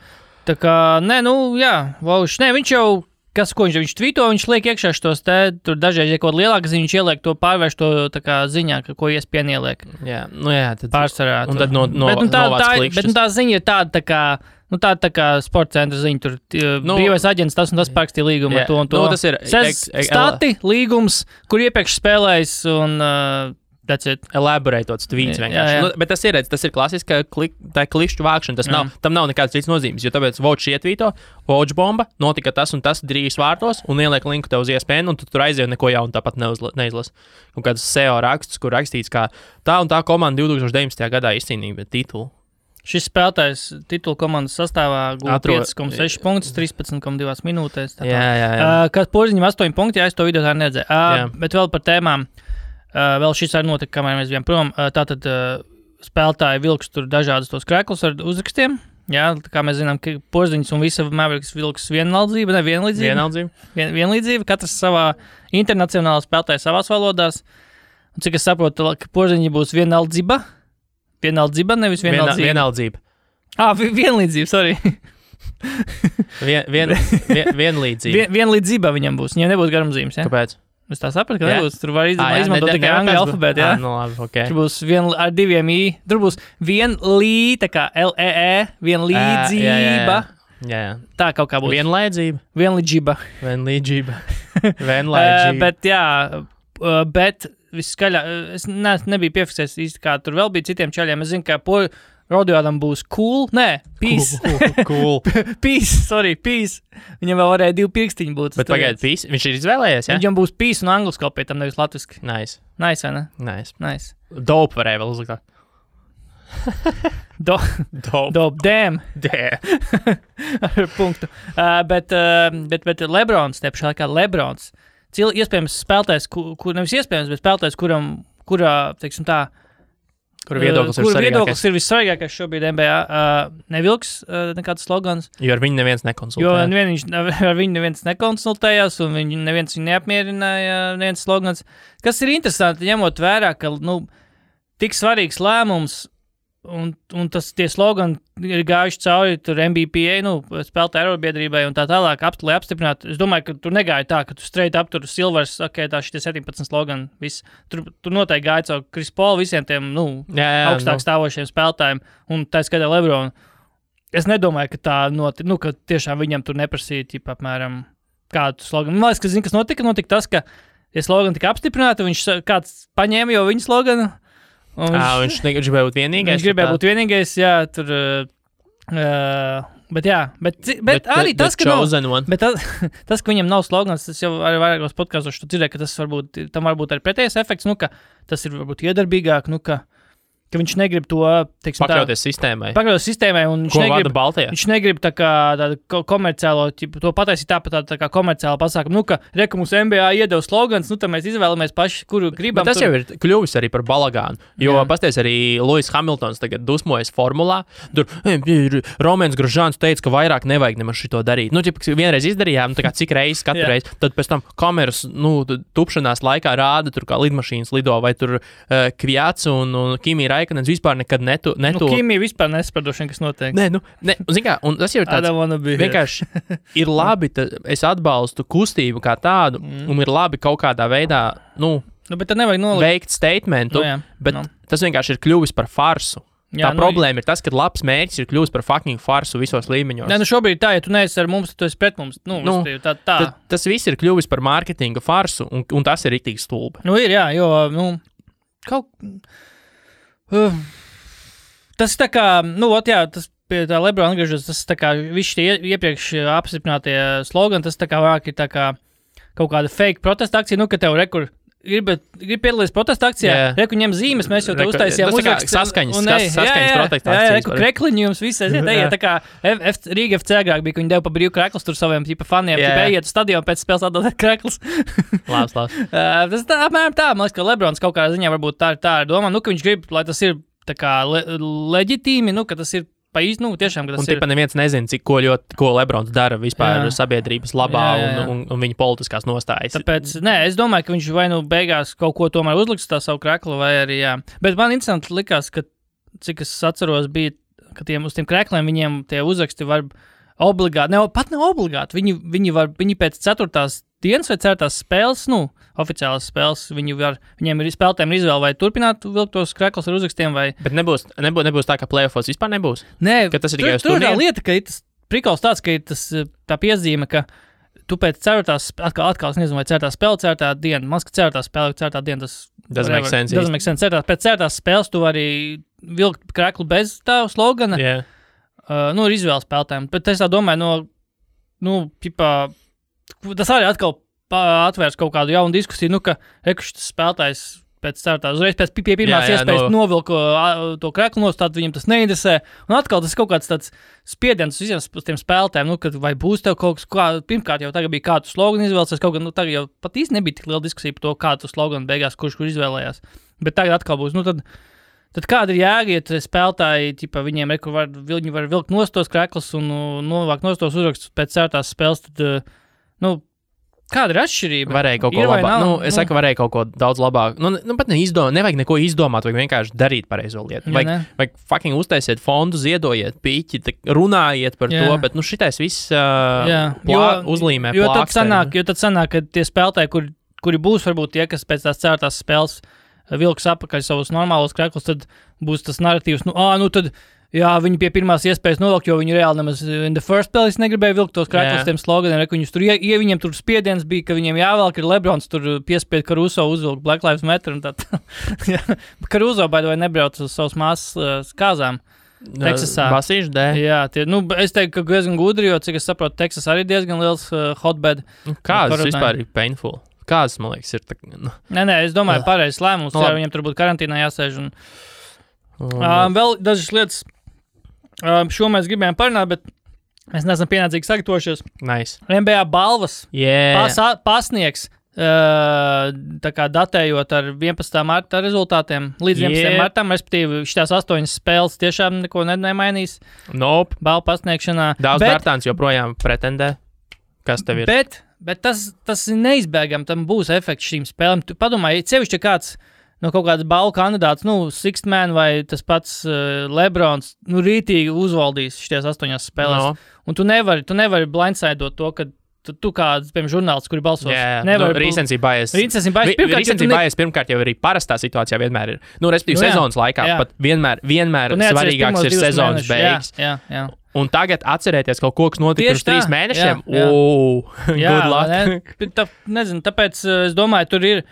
[SPEAKER 2] Tā kā, Vožs, viņš jau... Ko viņš tvīto, viņš liek iekšā šos tur dažreiz, ja kaut lielāka ziņa, viņš ieliek to pārvērš to tā kā ziņā, ko ESPN ieliek.
[SPEAKER 1] Jā, tad...
[SPEAKER 2] Pārsvarā.
[SPEAKER 1] Un tad novāc klikšķis.
[SPEAKER 2] Bet tā ziņa ir tāda tā kā sporta centra ziņa, tur brīvais aģents tas un tas parakstīja līgumu ar to un to.
[SPEAKER 1] Tas ir...
[SPEAKER 2] Stati, līgums, kur iepriekš spēlējis un... That's it.
[SPEAKER 1] Elaborētots tvīts vienkārši. Bet tas ir klasiska klikšķu vākšana. Tam nav nekādas citas nozīmes, jo tāpēc Vočs ietvīto, Vojbomba, notika tas un tas 3 vārtos un ieliek linku tev uz ESPN, un tu tur aizies neko jaunu tāpat neizlas. Un kāds SEO raksts, kur rakstīts, kā tā un tā komanda 2019. Gadā izcīnīja titulu.
[SPEAKER 2] Šis spēlētājs titulu komandas sastāvā guva 5,6 punktus, 13,2 minūtēs. Kad Porziņam 8 punkti, es to video tā neredzēju. Bet vēl par tēmām. Vēl šis arī notika, kamēr mēs bijām prom. Tātad spēlētāji vilks tur dažādas tos kreklus ar uzrakstiem. Jā, tā kā mēs zinām, ka Porziņš un visa Mavericks vilks vienlīdzība. Katrs savā internacionālā spēlētāja savās valodās. Un cik es saprotu, ka Porziņi būs vienaldzība, nevis vienaldzība.
[SPEAKER 1] Vienaldzība.
[SPEAKER 2] Vienlīdzība, sorry.
[SPEAKER 1] Vienlīdzība.
[SPEAKER 2] Vienlīdzība viņam būs, viņam nebūs garumzīmes, jā?
[SPEAKER 1] Kāpēc?
[SPEAKER 2] Es tā sapratu, ka nebūs. Tur var izmantot tikai angļu alfabētu, jā?
[SPEAKER 1] Labi, okay.
[SPEAKER 2] Tur būs ar 2 i. Tur būs tā kā L-E-E, vienlīdzība.
[SPEAKER 1] Jā.
[SPEAKER 2] Tā kaut kā būs.
[SPEAKER 1] Vienlīdzība.
[SPEAKER 2] Bet viskaļā, es nebiju piefiksējis īsti, kā tur vēl bija citiem čaļiem. Es zinu, ka Rodijādam būs cool. Nē, peace.
[SPEAKER 1] Cool.
[SPEAKER 2] Peace. Viņam vēl varēja 2 pirkstiņi būt.
[SPEAKER 1] Bet pagaid, peace. Viņš ir izvēlējies, jā?
[SPEAKER 2] Viņam būs peace un angļu skopē, tam nevis latviski.
[SPEAKER 1] Nice,
[SPEAKER 2] vai ne?
[SPEAKER 1] Nice. Dope varēja vēl uzlikt.
[SPEAKER 2] Dope. Damn. Ar punktu. Bet Lebrons, tepšā laikā Lebrons. Iespējams spēlētājs, nevis iespējams, bet spēlētājs, kurā, teiksim tā,
[SPEAKER 1] Kur viedoklis
[SPEAKER 2] ir vissvarīgākais šobrīd NBA. Nevilks nekāds slogans.
[SPEAKER 1] Jo ar viņu neviens
[SPEAKER 2] nekonsultējās, un neviens viņu neapmierināja, neviens slogans. Kas ir interesanti, ņemot vērā, ka tik svarīgs lēmums, un tie slogani ir gājuši cauri tur MBPA, spēlētāju arobiedrībai un tā tālāk, lai apstiprinātu. Es domāju, ka tur negāja tā, ka tu straight up tur Silvers, tā šitie 17 slogani, viss. Tur noteikti gāja cauri Chris Paul visiem tiem, augstāk stāvošiem spēlētājiem, un tā skaitā Lebronu. Es nedomāju, ka tā ka tiešām viņam tur neprasīja, apmēram, kādu sloganu. Man liekas, ka zini, kas notika? Notika tas, ka slogani tika apstiprināti, kāds paņēma jau viņu sloganu.
[SPEAKER 1] Viņš gribēja būt vienīgais.
[SPEAKER 2] Jā, tur. Bet arī tas, ka tas, ka viņam nav slogans, tas jau arī vairākos podkastos tu dzirdēji, ka tam varbūt arī pretējais efekts, ka tas ir varbūt iedarbīgāk, ka viņš negrib to, teiksim,
[SPEAKER 1] pakļauties sistēmai,
[SPEAKER 2] un viņš negrib tā kā tādu komerciālo, to pataisīt tā kā komerciāla pasākumu, ka mums NBA iedeva slogans, tad mēs izvēlamies paši, kuru gribam.
[SPEAKER 1] Bet tas jau ir kļuvis arī par balagānu, jo pasties arī Lewis Hamiltons tagad dusmojas formulā, tur Romēns Grožāns teica, ka vairāk nevajag nemaz šito darīt. Vienreiz izdarījām, tā kā cik reizes katru reizi, tad pēc tam kameras, tupšanās laikā rāda tur kā lidmašīnas lido, vai tur Kvjats un Kimi Rai Raikonens vispār nekad netu...
[SPEAKER 2] Kimi vispār nesapradošana, kas notiek.
[SPEAKER 1] Nē, zin kā, un tas jau ir tāds... Vienkārši ir labi, es atbalstu kustību kā tādu, un ir labi kaut kādā veidā,
[SPEAKER 2] bet tad nevajag nolikt.
[SPEAKER 1] Veikt statementu, bet tas vienkārši ir kļuvis par farsu. Tā problēma ir tas, ka labs mērķis ir kļuvis par fucking farsu visos līmeņos.
[SPEAKER 2] Nē, šobrīd tā, ja tu neesi ar mums, tad tu esi pret mums. Tā.
[SPEAKER 1] Tas viss ir kļuvis par mārketinga farsu, un tas ir riktīgi stulbi.
[SPEAKER 2] Ir, jā, jo, tas tā kā, tas pie tā Lebrona atgriežas, tas tā kā visi tie iepriekš apstiprinātie slogani, tas tā kā vairāk ir tā kā kaut kāda fake protesta akcija, ka tev rekur grib piedalīties protesta akcijā, reku ņem zīmes, mēs jau te uztaisījām
[SPEAKER 1] uzrakstu. Saskaņas protesta akcijas.
[SPEAKER 2] Reku krekliņi jums visi aiziet, tā kā Rīga FC agrāk bija, ka viņi deva pa brīvu kreklus tur saviem faniem, ejiet uz stadionu pēc spēles atdodēt kreklus.
[SPEAKER 1] Labs.
[SPEAKER 2] Tas tā, apmēram tā, man liekas, ka Lebrons kaut kādā ziņā varbūt tā ir domā, ka viņš grib, lai tas ir tā kā leģitīmi, ka tas ir pa īsti, tiešām, ka tas ir. Un
[SPEAKER 1] neviens nezina, ko Lebrons dara vispār sabiedrības labā un viņa politiskās nostājas.
[SPEAKER 2] Tāpēc, es domāju, ka viņš vai beigās kaut ko tomēr uzliks tā savu kreklu, vai arī, Bet man interesanti likās, ka, cik es atceros, bija, ka uz tiem krekliem viņiem tie uzraksti var obligāti, pat ne obligāti, viņi pēc 4. dienas vai 4. spēles, oficiālās spēles, viņiem ir spēlētājiem izvēle vai turpināt vilkt tos kreklus ar uzrakstiem vai...
[SPEAKER 1] Bet nebūs tā, ka playoffos vispār nebūs?
[SPEAKER 2] Nē,
[SPEAKER 1] ka tas ir tikai uz
[SPEAKER 2] turnīru? Tur ir tā lieta, ka ir tas prikals tāds, ka ir tas tā piezīme, ka tu pēc 4. atkal es nezinu, vai 4. spēle, 4. diena, man liekas, 4. spēle, 4. diena, tas...
[SPEAKER 1] Doesn't make sense.
[SPEAKER 2] Pēc 4. spēles tu vari vilkt kreklu bez tā slogana.
[SPEAKER 1] Yeah.
[SPEAKER 2] Ir izvēles spēlētājiem, bet es tā domāju, tas arī atkal atvērs kaut kādu jaunu diskusiju, ka šis spēlētājs pēc 4. uzreiz pēc pirmās iespējas novilku to kreklu nost, tad viņam tas neinteresē. Un atkal tas kaut kāds tāds spiediens visiem tiem spēlētājiem, kad vai būs tev kaut kas, pirmkārt jau tagad bija kādu sloganu izvēlēsies, kaut gan, tagad jau pat īsti nebija tik liela diskusija par to, kādu sloganu beigās, kurš izvēlējās. Bet tagad atkal būs, tad kāda ir jēga, ja spēlētāji, viņiem viņi var vilkt nost tos kreklus un novākt nost tos uzrakstus pēc 4. spēles, tad, kāda ir atšķirība?
[SPEAKER 1] Varēja kaut ko labāk. Es saku, varēja kaut ko daudz labāk. Pat nevajag neko izdomāt, vajag vienkārši darīt pareizo lietu. Vajag fucking uztaisiet fondu, ziedojiet piķi, runājiet par to, bet šitais viss uzlīmē plāksteri.
[SPEAKER 2] Jo tad sanāk, ka tie spēlētāji, kuri būs varbūt tie, kas pēc tās 4. spēles vilks apakaļ savus normālos kreklus, tad būs tas narratīvs, tad viņi pie pirmās iespējas novilkt, jo viņi reāli nemaz in the first place negribēja vilkt tos kreklus tiem sloganiem, viņiem tur spiediens bija, ka viņiem jāvelk ir Lebrons, tur piespied Caruso uzvilkt Black Lives Matter un tā. Caruso, by the way, nebrauc uz savas māsas kāzām. Teksasā.
[SPEAKER 1] Basīšu dēļ.
[SPEAKER 2] Jā, es teiktu, ka diezgan gudri, jo, cik es saprotu, Teksas arī diezgan liels hotbed.
[SPEAKER 1] Kādas vispār ir painful? Kādas, man liekas, ir tā...
[SPEAKER 2] Nē, es domāju, pareizs lēmums, ja viņiem tur būtu karantīnā jāsēž. Vēl dažas lietas, šo mēs gribējām parunāt, bet mēs neesam pienācīgi sagatavojušies.
[SPEAKER 1] Nice.
[SPEAKER 2] NBA balvas pasniegs, tā kā datējot ar 11. marta rezultātiem, līdz 11. martam, respektīvi, šitās 8 spēles tiešām neko nemainīs.
[SPEAKER 1] Nope.
[SPEAKER 2] Balvu pasniegšanā.
[SPEAKER 1] Daudz Bērtāns joprojām pretendē. Kas tev ir?
[SPEAKER 2] Bet tas ir neizbēgami, tam būs efekts šīm spēlēm. Tu padomā, ja sevišķi kāds kaut kāds balvu kandidāts, Sixth Man vai tas pats Lebrons, rītīgi uzvaldīs šīs 8 spēlēs. No. Un tu nevari blindsidot to, ka tu kāds, piemēram, žurnālists, kuri balsos.
[SPEAKER 1] Recency bias. Pirmkārt jau arī parastā situācijā vienmēr ir. Respektīvi sezonas laikā pat vienmēr svarīgāks ir sezonas beigas.
[SPEAKER 2] Jā.
[SPEAKER 1] Un tagad atcerēties kaut ko, kas notika pirms 3 mēnešiem. Good luck.
[SPEAKER 2] Nezinu, tāpēc es domāju, tur ir,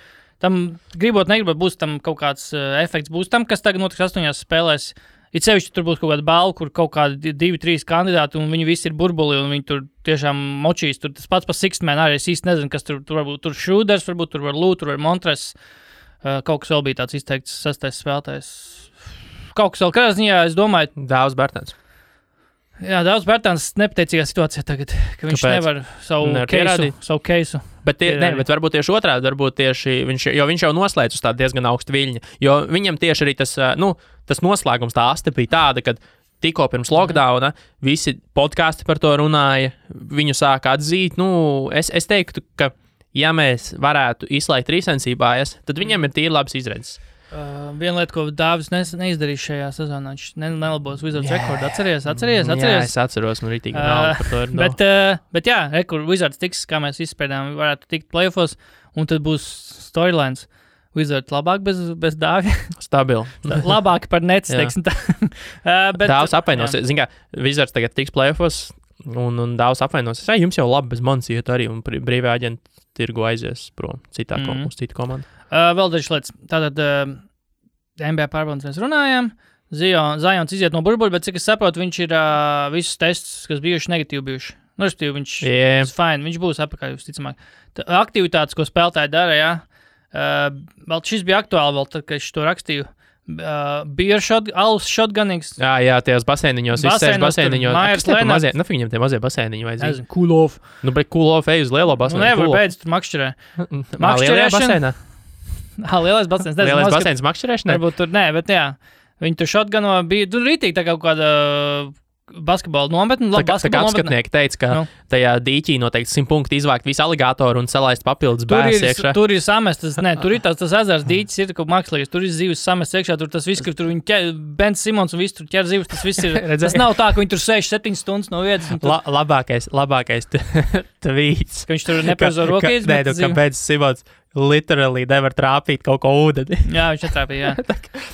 [SPEAKER 2] tam gribot, būs tam kaut kāds efekts, būs tam, kas tagad notiks 8 spēlēs. Ir sevišķi, tur būs kaut kāda balva, kur kaut kādi 2-3 kandidāti, un viņi visi ir burbuli, un viņi tur tiešām močīs. Tur tas pats par Sixth Man arī es īsti nezinu, kas tur varbūt. Tur Šrūders, varbūt tur var Lūt, tur var Montres. Kaut kas vēl bija tāds izteikts 6. spēlētājs. Kaut kas vēl kādā ziņā, es domāju.
[SPEAKER 1] Daudz Bērtāns.
[SPEAKER 2] Jā, daudz Bērtāns nepateicīgā situācijā tagad, ka viņš nevar savu keisu.
[SPEAKER 1] Bet varbūt tieši otrādi, viņš jau noslēdz uz tādu diezgan augstu viļņu, jo viņam tieši arī tas noslēgums, tā aste bija tāda, kad tikko pirms lockdowna visi podkāsti par to runāja, viņu sāka atzīt, es teiktu, ka ja mēs varētu izslēgt recency bias, tad viņam ir tīri labs izredzes.
[SPEAKER 2] Viena lieta, ko Dāvis neizdarīja šajā sezonā, viņš nelabos Wizards rekordu. Atceries?
[SPEAKER 1] Jā, es atceros, man rītīgi nauda par to ir.
[SPEAKER 2] Bet jā, kur Wizards tiks, kā mēs izspēdām, varētu tikt playoffos, un tad būs storylines. Wizards labāk bez Dāvja.
[SPEAKER 1] Stabili.
[SPEAKER 2] Labāk par Nets, teiksim tā.
[SPEAKER 1] Dāvs apvainos. Zin kā, Wizards tagad tiks playoffos, un Dāvs apvainos. Jums jau labi bez manis iet arī, un brīvē aģenti tirgu aizies prom citā uz citu komandu.
[SPEAKER 2] Vēl dažas lietas. Tātad NBA pārbaudas mēs runājām. Zions iziet no burbuļa, bet cik es saprotu, viņš ir visus tests, kas bijuši negatīvi bijuši. Nu, respektīvi, viņš ir fine, viņš būs apakaļ, visticamāk. Aktivitātes, ko spēlētāji dara, jā. Vēl šis bija aktuāli, vēl tad, kad es to rakstīju. Alus shotgunings.
[SPEAKER 1] Jā, tajos basēniņos, izsēž basēniņos.
[SPEAKER 2] Mājas Lenards.
[SPEAKER 1] Nu, viņam tie mazie basēniņi vajadzīgi.
[SPEAKER 2] Nezinu, cool off.
[SPEAKER 1] Nu, bet cool off ej uz lielo basēniņu.
[SPEAKER 2] Nu, nevar beidz tur makšķerē.
[SPEAKER 1] Lielajā basēnā?
[SPEAKER 2] Lielais basēns.
[SPEAKER 1] Lielais basēns makšķerēšanai?
[SPEAKER 2] Varbūt tur, nē, bet jā. Viņi tur shotguno bija, tur rītīgi tā kaut kāda basketbola nometne.
[SPEAKER 1] Tā kā apskatnieki teica, ka tajā dīķī noteikti 100 punkti izvākt visu aligātoru un salaist papildus bēs iekšā.
[SPEAKER 2] Tur ir samestas, tur ir tas ezers dīķis, ir kaut mākslīgs, tur ir zivs samest iekšā, tur tas viss, kur tur viņi ķer, Ben Simons un viss tur ķer zivs, tas viss ir. Tas nav tā, ka viņi tur 6-7 stundas no vietas.
[SPEAKER 1] Labākais tvīts.
[SPEAKER 2] Ka viņš tur nepareizo roku izmet.
[SPEAKER 1] Nē, ka Ben Simons literally nevar trāpīt kaut ko ūdeni.
[SPEAKER 2] Jā, viņš netrāpīja, jā.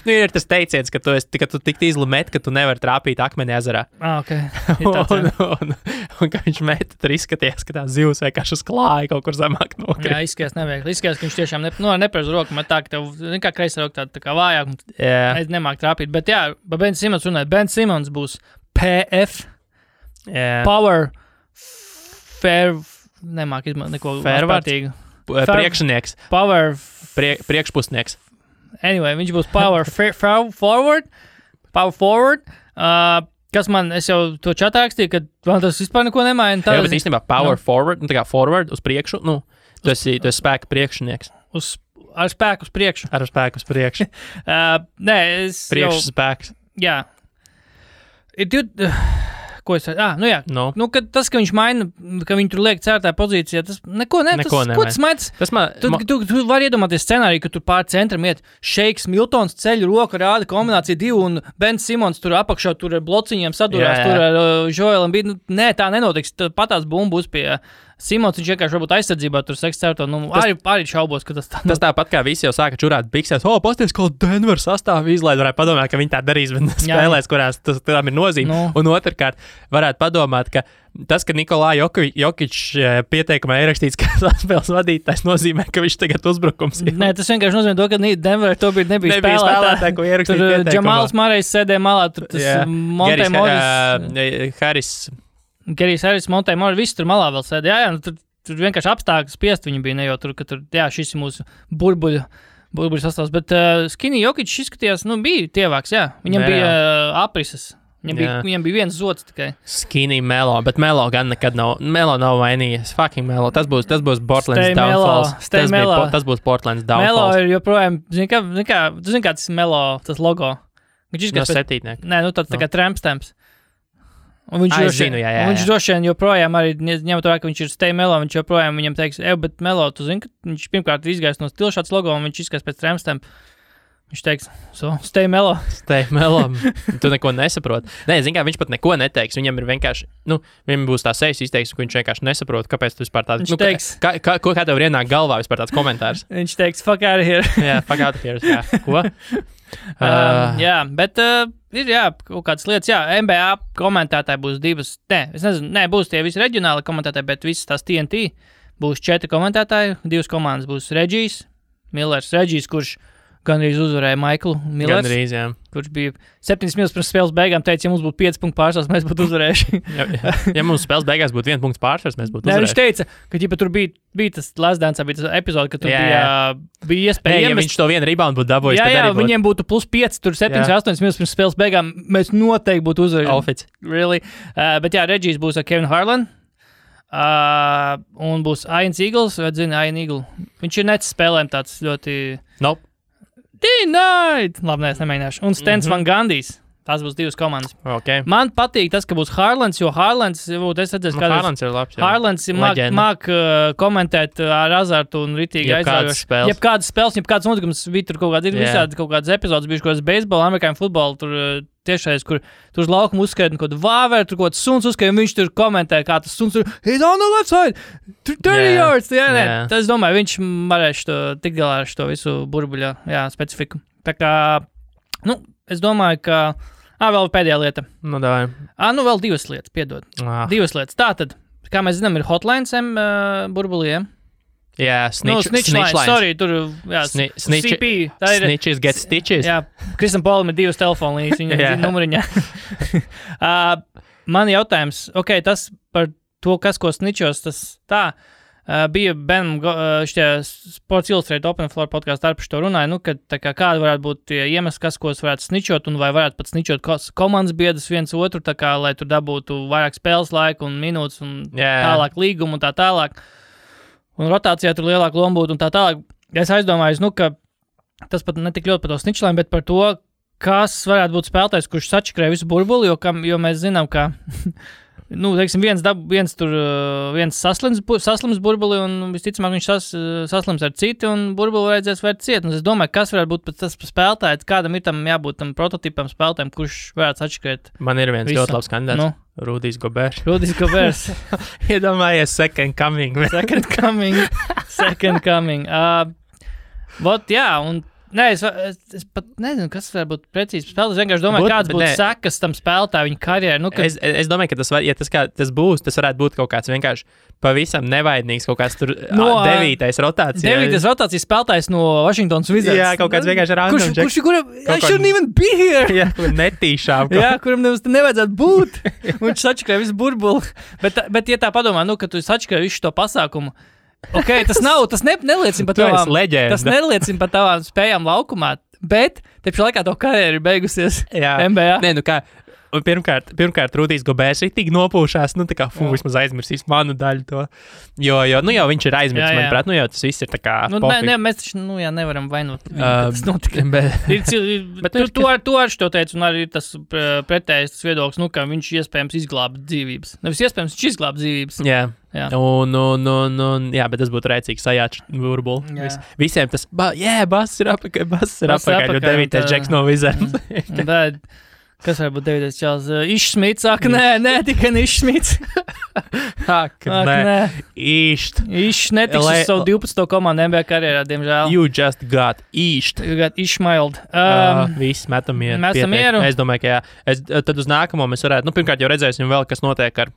[SPEAKER 1] Ir tas teiciens, ka tu tik izli met, ka tu nevari trāpīt akmeni ezerā.
[SPEAKER 2] Okay.
[SPEAKER 1] un ka viņš met, tur izskaties, ka tā zivs vienkārši uz klāja kaut kur zemāk nokrīt.
[SPEAKER 2] Jā, izskatās neviegli. Izskatās, ka viņš tiešām nepareizo roku met tā, ka tev, kā kreisā roka tā kā vājāk, un nemāk trāpīt. Bet jā, Ben Simons runāja, Ben Simons būs PF, Power, Fair, nemāk izmantot neko vārtīgu.
[SPEAKER 1] Priekšnieks.
[SPEAKER 2] Power.
[SPEAKER 1] Priekšpusnieks.
[SPEAKER 2] Anyway, viņš būs Power Forward. Power Forward. Kas man, es jau to čatā rakstīju, ka man tas vispār neko nemaina.
[SPEAKER 1] Jā, bet īstenībā Power Forward, tā kā forward uz priekšu, tu esi spēka priekšnieks.
[SPEAKER 2] Ar spēku uz priekšu.
[SPEAKER 1] Ar spēku uz priekšu.
[SPEAKER 2] Nē, es
[SPEAKER 1] priekšu spēks.
[SPEAKER 2] Jā. Ko es jā.
[SPEAKER 1] No.
[SPEAKER 2] Nu, tas, ka viņš maina, ka viņi tur liek cērtā pozīcijā, tas neko ko tas maina? Tu vari iedomāties scenāriju, ka tur pār centram iet Šeiks Miltons ceļu roku rāda kombinācija 2 un Ben Simons tur apakšā tur ar blociņiem sadurās, tur ar Joelam bija. Nē, tā nenotiks. Patās bumbu būs pie Simons, viņš vienkārši varbūt aizsardzībā tur seks cērto. Arī šaubos, ka tas tā.
[SPEAKER 1] Tas tāpat kā visi jau sāka čurāt biksēs. Pasties, ko Denver sastāv izlaid, varētu padomāt, ka viņi tā darīs, bet spēlēs, kurās tam ir nozīme. Un otrkārt, varētu padomāt, ka tas, ka Nikolā Jokič pieteikumā ierakstīts, ka spēles vadītājs nozīmē, ka viņš tagad uzbrukums ir.
[SPEAKER 2] Nē, tas vienkārši nozīmē to, ka Denver to nebija
[SPEAKER 1] spēlētāji, ko ierakstīja pieteikumā.
[SPEAKER 2] Tur Džamāls Marejs sēdēja malā, tur tas Montē Morris. Gerijs Harris, Montē Morris, visi tur malā vēl sēdēja. Jā, tur vienkārši apstākļi spiest viņi bija, ne jau tur, ka tur, šis ir mūsu burbuļu sastāvs. Bet Skinny Jokic izskatījās, bija tievāks, jā. Viņam bija aprises. Viņam bija viens zods tikai.
[SPEAKER 1] Skinny Melo, bet Melo gan nekad nav. Melo nav vainījies. Fucking Melo. Tas būs Portlands downfalls. Tas būs Portlands downfalls.
[SPEAKER 2] Melo ir joprojām, tu zini, kā tas Melo, tas logo.
[SPEAKER 1] No septītnieka.
[SPEAKER 2] Nē, tāds tā kā trampstamps. Un viņš
[SPEAKER 1] viņš
[SPEAKER 2] droši vien joprojām arī ņemot vērā, ka viņš ir Stay Melo, viņš joprojām viņam teiks, bet Melo, tu zini, ka viņš pirmkārt ir izgājis no stila šāds logo, un viņš izskās pēc trampstampa. Viņš teiks, Stay Melo.
[SPEAKER 1] Stay Melo. Tu neko nesaproti. Nē, zini kā, viņš pat neko neteiks. Viņam ir vienkārši, viņam būs tā sejas izteiksme, ka viņš vienkārši nesaprot, kāpēc tu vispār tāds.
[SPEAKER 2] Viņš teiks,
[SPEAKER 1] kā tev ienāk galvā vispār tāds komentārs?
[SPEAKER 2] Viņš teiks, fuck out of here.
[SPEAKER 1] Jā, fuck out of here. Jā. Ko?
[SPEAKER 2] Jā, bet ir kaut kādas lietas. Jā, NBA komentētāji būs divas. Es nezinu, būs tie visi reģionāli komentētāji, bet visas tās TNT būs 4 komentētāji. 2 komandas būs Regijs, Millers, kurš gandrīz uzvarēja Maiklu Millers.
[SPEAKER 1] Gandrīz, jā.
[SPEAKER 2] Kurš bija 7 minūtes pirms spēles beigām, teica, ja mums būtu 5 punktu pārsvars, mēs būtu uzvarējuši.
[SPEAKER 1] Ja mums spēles beigās būtu 1 punkts pārsvars, mēs būtu uzvarējuši.
[SPEAKER 2] Viņš teica, ka ja tur bija tas Last Dance, bija tas epizode, ka tur bija iespēja.
[SPEAKER 1] Ja viņš to vienu rebound būtu dabūjis,
[SPEAKER 2] tad arī būtu. Viņiem būtu +5, tur 7-8 minūtes pirms spēles beigām, mēs noteikti būtu uzvarējuši. Really? Bet jā, Regijs būs ar Kevin Harlan. Un būs Ian Eagles, vai zini, Ian Eagle. Viņš ir nets spēlēm tāds ļoti...
[SPEAKER 1] Nope.
[SPEAKER 2] Denied! Labi, nē, es nemēģināšu. Un Stens Van Gandijs. Tās būs 2 komandas.
[SPEAKER 1] Okay.
[SPEAKER 2] Man patīk tas, ka būs Haalands, jo Haalands, es redzēju, ka
[SPEAKER 1] Haalands ir labs.
[SPEAKER 2] Haalands māk komentēt ar azartu un ritīgi aizraujoši. Jebkādas spēles, jebkādas notikums, tur kaut kāds ir visādi kaut kādas epizodes, bijuši kaut kāds beisbola, amerikāņu futbola, tur tiešais, kur tur uz laukuma uzskaita kaut kādu vāveru, tur kaut kāds suns uzskaita, un viņš tur komentē, kā tas suns tur, he's on the left side, 30 yards, Tas, es domāju, viņš varēs tikt galā ar šo visu burbuļa, specifiku. Tā kā, es domāju, ka, vēl pēdējā lieta.
[SPEAKER 1] Davai.
[SPEAKER 2] Vēl 2 lietas, piedod. 2 lietas. Tātad, kā mēs zinām, ir hotlines burbuliem.
[SPEAKER 1] Jā, snitch
[SPEAKER 2] line. Sorry, tur, CP.
[SPEAKER 1] Snitches get stitches.
[SPEAKER 2] Jā, Kristam Polam ir 2 telefonu līnijas, viņa numuriņā. Man jautājums, tas par to, kas ko snitchos, tas tā, bija Benam, Sports Illustrated Open Floor podkāsts starp šo runāja, ka kāda varētu būt tie iemesli, kas ko varētu snitchot, un vai varētu pat snitchot komandas biedrus viens otru, lai tur dabūtu vairāk spēles laiku un minūtes un tālāk līgumu un tā tālāk. Un rotācijā tur lielāka loma būtu un tā tālāk. Es aizdomājos, ka tas pat ne tik ļoti par to snitchlēm, bet par to, kas varētu būt spēlētājs, kurš sačakrē visu burbuli, jo mēs zinām, ka teiksim, viens saslims burbuli un visticamāk viņš saslims ar citu un burbuli vajadzēs vērt ciet. Un es domāju, kas varētu būt tas spēlētājs, kādam ir tam jābūt tam prototipam spēlētājiem, kurš varētu sačakrēt.
[SPEAKER 1] Man ir viens ļoti labs kandidāts. Rudijs Gobers.
[SPEAKER 2] Iedomājies
[SPEAKER 1] second coming.
[SPEAKER 2] Second coming. Un es pat nezinu, kas var būt precīzi spēlētājs. Es vienkārši domāju, kāds būtu sekas tam spēlētājai viņa karjerai.
[SPEAKER 1] Es domāju, ka tas būs, tas varētu būt kaut kāds vienkārši pavisam nevainīgs, kaut kāds tur 9. rotācija.
[SPEAKER 2] 9. rotācijas spēlētājs no Washingtonas Wizards.
[SPEAKER 1] Jā, kaut kāds vienkārši random.
[SPEAKER 2] Kuram I shouldn't even be here.
[SPEAKER 1] Jā, netīšām.
[SPEAKER 2] Jā, kuram nevajadzētu būt. Viņš sačakrē visu burbuli. Bet ja tā padomā, ka tu sačakrē visu to pasākumu, tas neliecina par tavām spējām laukumā, bet te pašā laikā to karjeru ir beigusies NBA.
[SPEAKER 1] Nē, kā, pirmkārt Rudijs Gobers ir tik nopūšās, vismaz aizmirsīs manu daļu to, jo viņš ir aizmirsis, manuprāt, jau tas viss ir tā kā
[SPEAKER 2] mēs taču, nevaram vainot, tas notika. Bet tu ar šo teicu, un arī tas pretējais viedoklis, ka viņš iespējams izglāba dzīvības. Nevis iespējams, viņš izglāba dzīvības.
[SPEAKER 1] Jā. Bet tas būtu rēcīgs sajāts burbuli. Visiem tas, bass ir apakaļ, jo 9. džeks no Wizards.
[SPEAKER 2] Bet, kas var būt 9. čels? Iššmits, nē, tikai Iššmits.
[SPEAKER 1] Nē.
[SPEAKER 2] Iš netiks uz savu 12. komandu NBA karjerā, diemžēl.
[SPEAKER 1] You just got Išt.
[SPEAKER 2] You got Išmailed.
[SPEAKER 1] Viss, metam mieru. Es domāju, ka jā. Tad uz nākamo mēs varētu, pirmkārt jau redzēsim vēl, kas notiek ar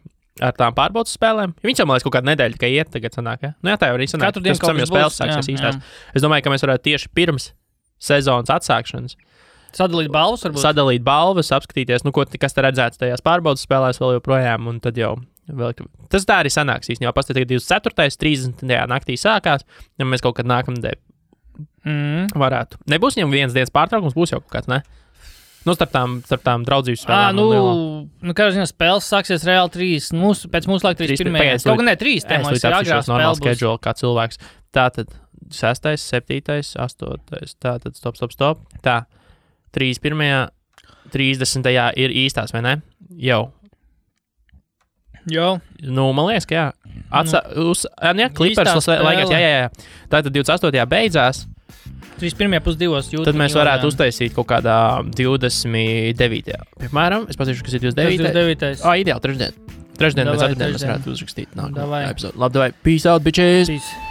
[SPEAKER 1] tām pārbaudas spēlēm. Viņš jau, man liekas, kaut kādu nedēļu tikai iet tagad sanāk, ja? Tā jau arī sanāk.
[SPEAKER 2] Katru dienu kaut kas
[SPEAKER 1] spēles sāksies īstās. Es domāju, ka mēs varētu tieši pirms sezonas atsākšanas
[SPEAKER 2] sadalīt balvas, varbūt?
[SPEAKER 1] Sadalīt balvas, apskatīties, kas te redzēts tajās pārbaudas spēlēs vēl joprojām, un tad jau tas tā arī sanāks īstenībā. Pastāv 24. 30. naktī sākās, ja mēs kaut kad nākamnedēļ varētu. Nebūs viņam vienas dienas pārtraukums, būs jau kaut kāds, ne? Starp tām draudzības spēlēm.
[SPEAKER 2] Kā ziņā, spēles sāksies reāli 3, pēc mūsu laika 3. Kaut gan ne 3, tā mums ir agrāk spēle būs.
[SPEAKER 1] Schedule, kā cilvēks. Tātad 6., 7., 8. Tātad stop. Tā, 31. 30. ir īstās, vai ne? Jau. Man liekas, ka jā. Clippers laikās, jā. Tātad 28. beidzās.
[SPEAKER 2] 31.2.
[SPEAKER 1] Tad mēs varētu uztaisīt kaut kādā 29. Piemēram, es patīšu, kas ir 29. Ideāli, trešdien. Trešdien vai ceturtdien mēs varētu uzrakstīt nākamā epizodu. Labi, davai. Peace out, bitches!
[SPEAKER 2] Peace.